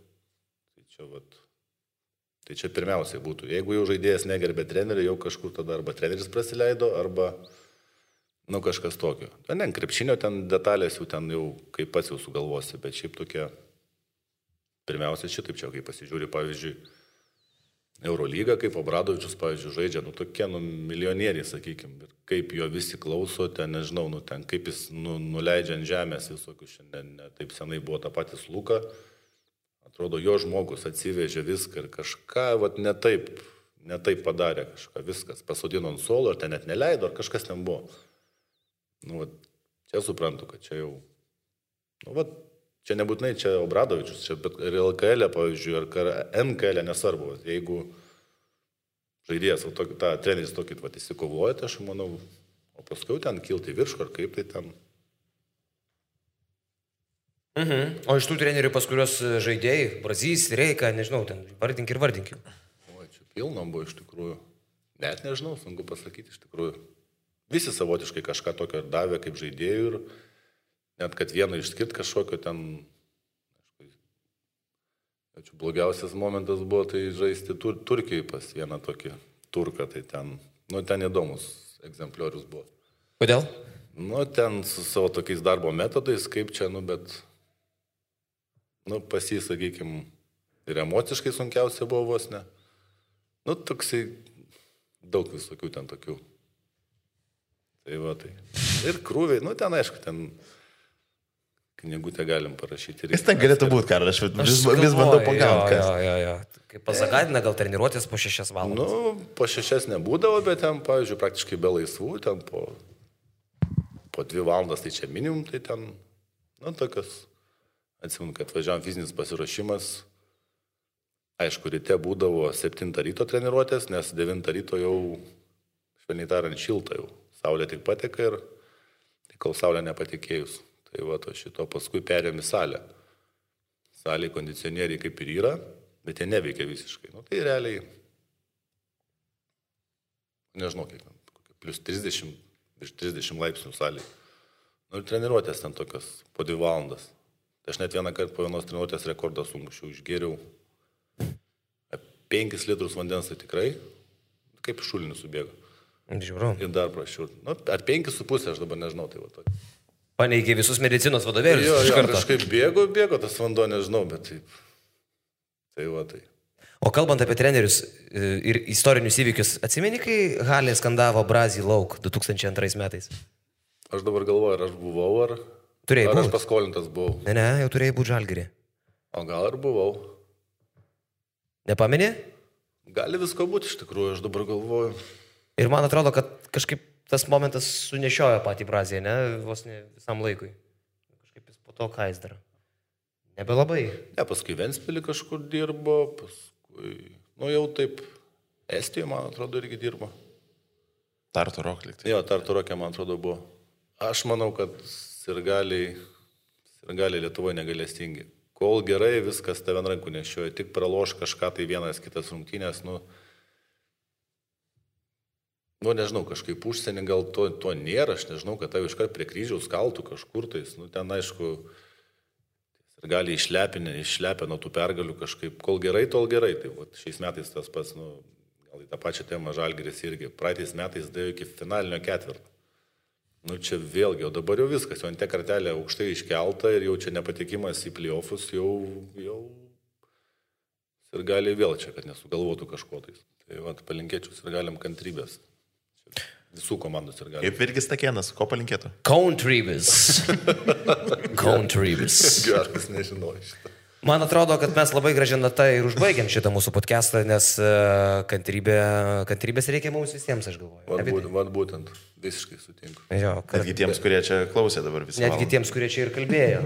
Tai čia pirmiausiai būtų. Jeigu jau žaidėjas negerbė trenerių, jau kažkur tada arba treneris prasileido, arba nu, kažkas tokio. Ne, krepšinio ten detalės jau ten jau kaip pats jau sugalvosi, bet šiaip tokie, pirmiausia šitaip čia, kai pasižiūri, pavyzdžiui, Eurolyga, kaip Obradovičius, pavyzdžiui, žaidžia, nu tokie, nu, milijonieriai, sakykime, ir kaip jo visi klauso, ten, nežinau, nu, ten, kaip jis nuleidžia ant žemės visokius, šiandien ne taip senai buvo ta patys Luka, atrodo, jo žmogus atsivežė viską ir kažką, vat, ne taip padarė, kažką, viskas, pasodino ant suolo, ar ten net neleido, ar kažkas ten buvo. Nu, vat, čia suprantu, kad čia jau, nu, vat, čia nebūtinai čia Obradovičius, čia, bet ir LKL, pavyzdžiui, ar NKL, nesvarbu. Jeigu žaidėjas, tą treneris tokį įsikovoja, tai aš manau, o paskui ten kilti viršų, ar kaip tai ten. O iš tų trenerių, pas kurios žaidėjai, Brazys, Reika, nežinau, ten vardink. O, čia pilnom buvo iš tikrųjų. Net nežinau, sunku pasakyti iš tikrųjų. Visi savotiškai kažką tokio davė kaip žaidėjų ir net kad vieną išskirt kažkokio ten, aišku, blogiausias momentas buvo tai žaisti Turkijai pas vieną tokį turką, tai ten, nu, ten įdomus egzempliorius buvo. Kodėl? Nu, ten su savo tokiais darbo metodais, kaip čia, nu, bet, nu, pas jį, sakykime, ir emociškai sunkiausia buvo vos ne. Nu, toksai, daug visokių ten tokių. Tai va, tai. Ir krūviai, nu, ten, aišku, ten knygutę galim parašyti. Jis ten galėtų būti, Karol, aš vis bandau pagauti. Jo. Kaip pasagadina, gal treniruotės po 6 valandas? Nu, po 6 nebūdavo, bet ten, pavyzdžiui, praktiškai be laisvų, ten po 2 valandas, tai čia minimum, tai ten, nu, tokios, atsimenu, kad važiavam fizinis pasiruošimas. Aišku, ryte būdavo 7 ryto treniruotės, nes 9 ryto jau, švelniai tariant, šilta jau. Saulė tik pateka ir kol saulė nepatikėjus. Tai va, to šito paskui perėm į salę. Salėje kondicionieriai kaip ir yra, bet jie neveikia visiškai. Nu, tai realiai, nežinau, kiek, plus 30, virš 30 laipsnių salėje. Nu, ir treniruotės ten tokios po 2 valandas. Tai aš net vieną kartą po vienos treniruotės rekordą sumušiau, išgėriau 5 litrus vandens, tai tikrai, kaip šulinis subėgo. Žiūrau. Ir dar prašiau. Nu, ar 5,5, aš dabar nežinau, tai va tokį. Paneigė visus medicinos vadovėlius. Jo, kažkaip bėgo tas vanduo, nežinau, bet taip. Tai va tai. O kalbant apie trenerius ir istorinius įvykius, atsimeni, kai Halė skandavo Brazį lauk 2002 metais? Aš dabar galvoju, ar aš buvau, ar aš paskolintas buvau. Ne, jau turėjai būti Žalgirį. O gal ir buvau. Nepameni? Gali visko būti iš tikrųjų, aš dabar galvoju. Ir man atrodo, kad kažkaip tas momentas sunešiojo patį Braziją, ne, vos ne visam laikui. Kažkaip jis po to ką jis dar. Nebelabai. Ne, paskui Ventspilį kažkur dirbo, paskui, nu jau taip, Estijoje, man atrodo, irgi dirbo. Tartu Rock liktai. Jo, Tartu Rock'e, man atrodo, buvo. Aš manau, kad sirgaliai Lietuvoje negalestingi. Kol gerai, viskas tave ant rankų nešioja, tik praloš kažką tai vienas kitas rungtynės, nu, nežinau, kažkaip užsienį gal to nėra, aš nežinau, kad tave iškart prie kryžiaus kaltų kažkur tais, nu, ten aišku, ir gali išlepę nuo tų pergalių kažkaip, kol gerai, tol gerai, tai va, šiais metais tas pats, nu, gal į tą pačią temą Žalgiris irgi, praeitais metais dėjo iki finalinio ketvirto. Nu, čia vėlgi, o dabar jau viskas, jau ant te kartelė aukštai iškelta ir jau čia nepatikimas į playoffus, jau ir gali vėl čia, kad nesugalvotų kažko tais. Tai va, palinkėčiau ir galim kantrybės. Visų komandų ir galim. Kaip Virgis Takėnas, ko palinkėtų? Kantrybės. Geras, nežinau šitą. Man atrodo, kad mes labai gražią natą ir užbaigiam šitą mūsų podcastą, nes kantrybės reikia mums visiems, aš galvoju. Vat būtent, visiškai sutinku. Netgi tiems, kurie čia klausė dabar visą. Netgi tiems, kurie čia ir kalbėjo.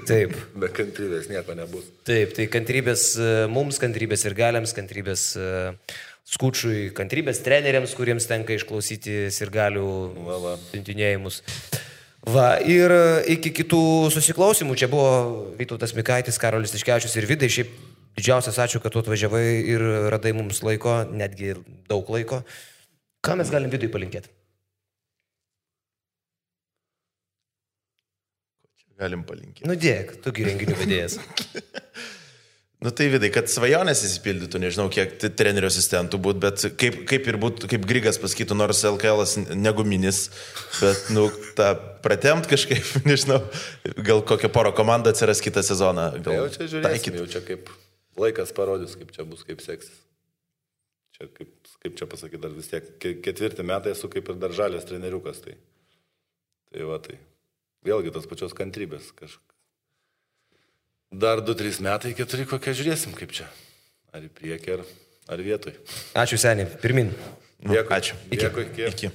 Taip. Be kantrybės nieko nebus. Taip, tai kantrybės mums, kantrybės ir galiams, kantrybės Skučui, kantrybės treneriams, kuriems tenka išklausyti sirgalių siuntinėjimus. Va, ir iki kitų susiklausimų. Čia buvo Vytautas Mikaitis, Karolis Tiškevičius ir Vidai. Šiaip didžiausias ačiū, kad tu atvažiavai ir radai mums laiko, netgi daug laiko. Ką mes galim Vidui palinkėti? Galim palinkėti. Nu dėk, tugi renginių vedėjas. Nu tai Vidai, kad svajonės įsipildytų, nežinau, kiek trenerio asistentų būtų, bet kaip ir būtų, kaip Grigas pasakytų, nors LKL'as neguminis, bet, nu, tą pratemt kažkaip, nežinau, gal kokią porą komandą atsiras kitą sezoną. Jau čia žiūrėsim, jau čia kaip laikas parodys, kaip čia bus, kaip seksis. Čia, kaip čia pasakyti, dar vis tiek 4 metai esu kaip ir dar žalės treneriukas, tai va tai. Vėlgi tos pačios kantrybės kažkaip. Dar 2-3 metai, 4 kokią žiūrėsim, kaip čia. Ar į priekį, ar vietoj. Ačiū seniai, pirmin. Dėkui. Ačiū. Dėkui. Iki.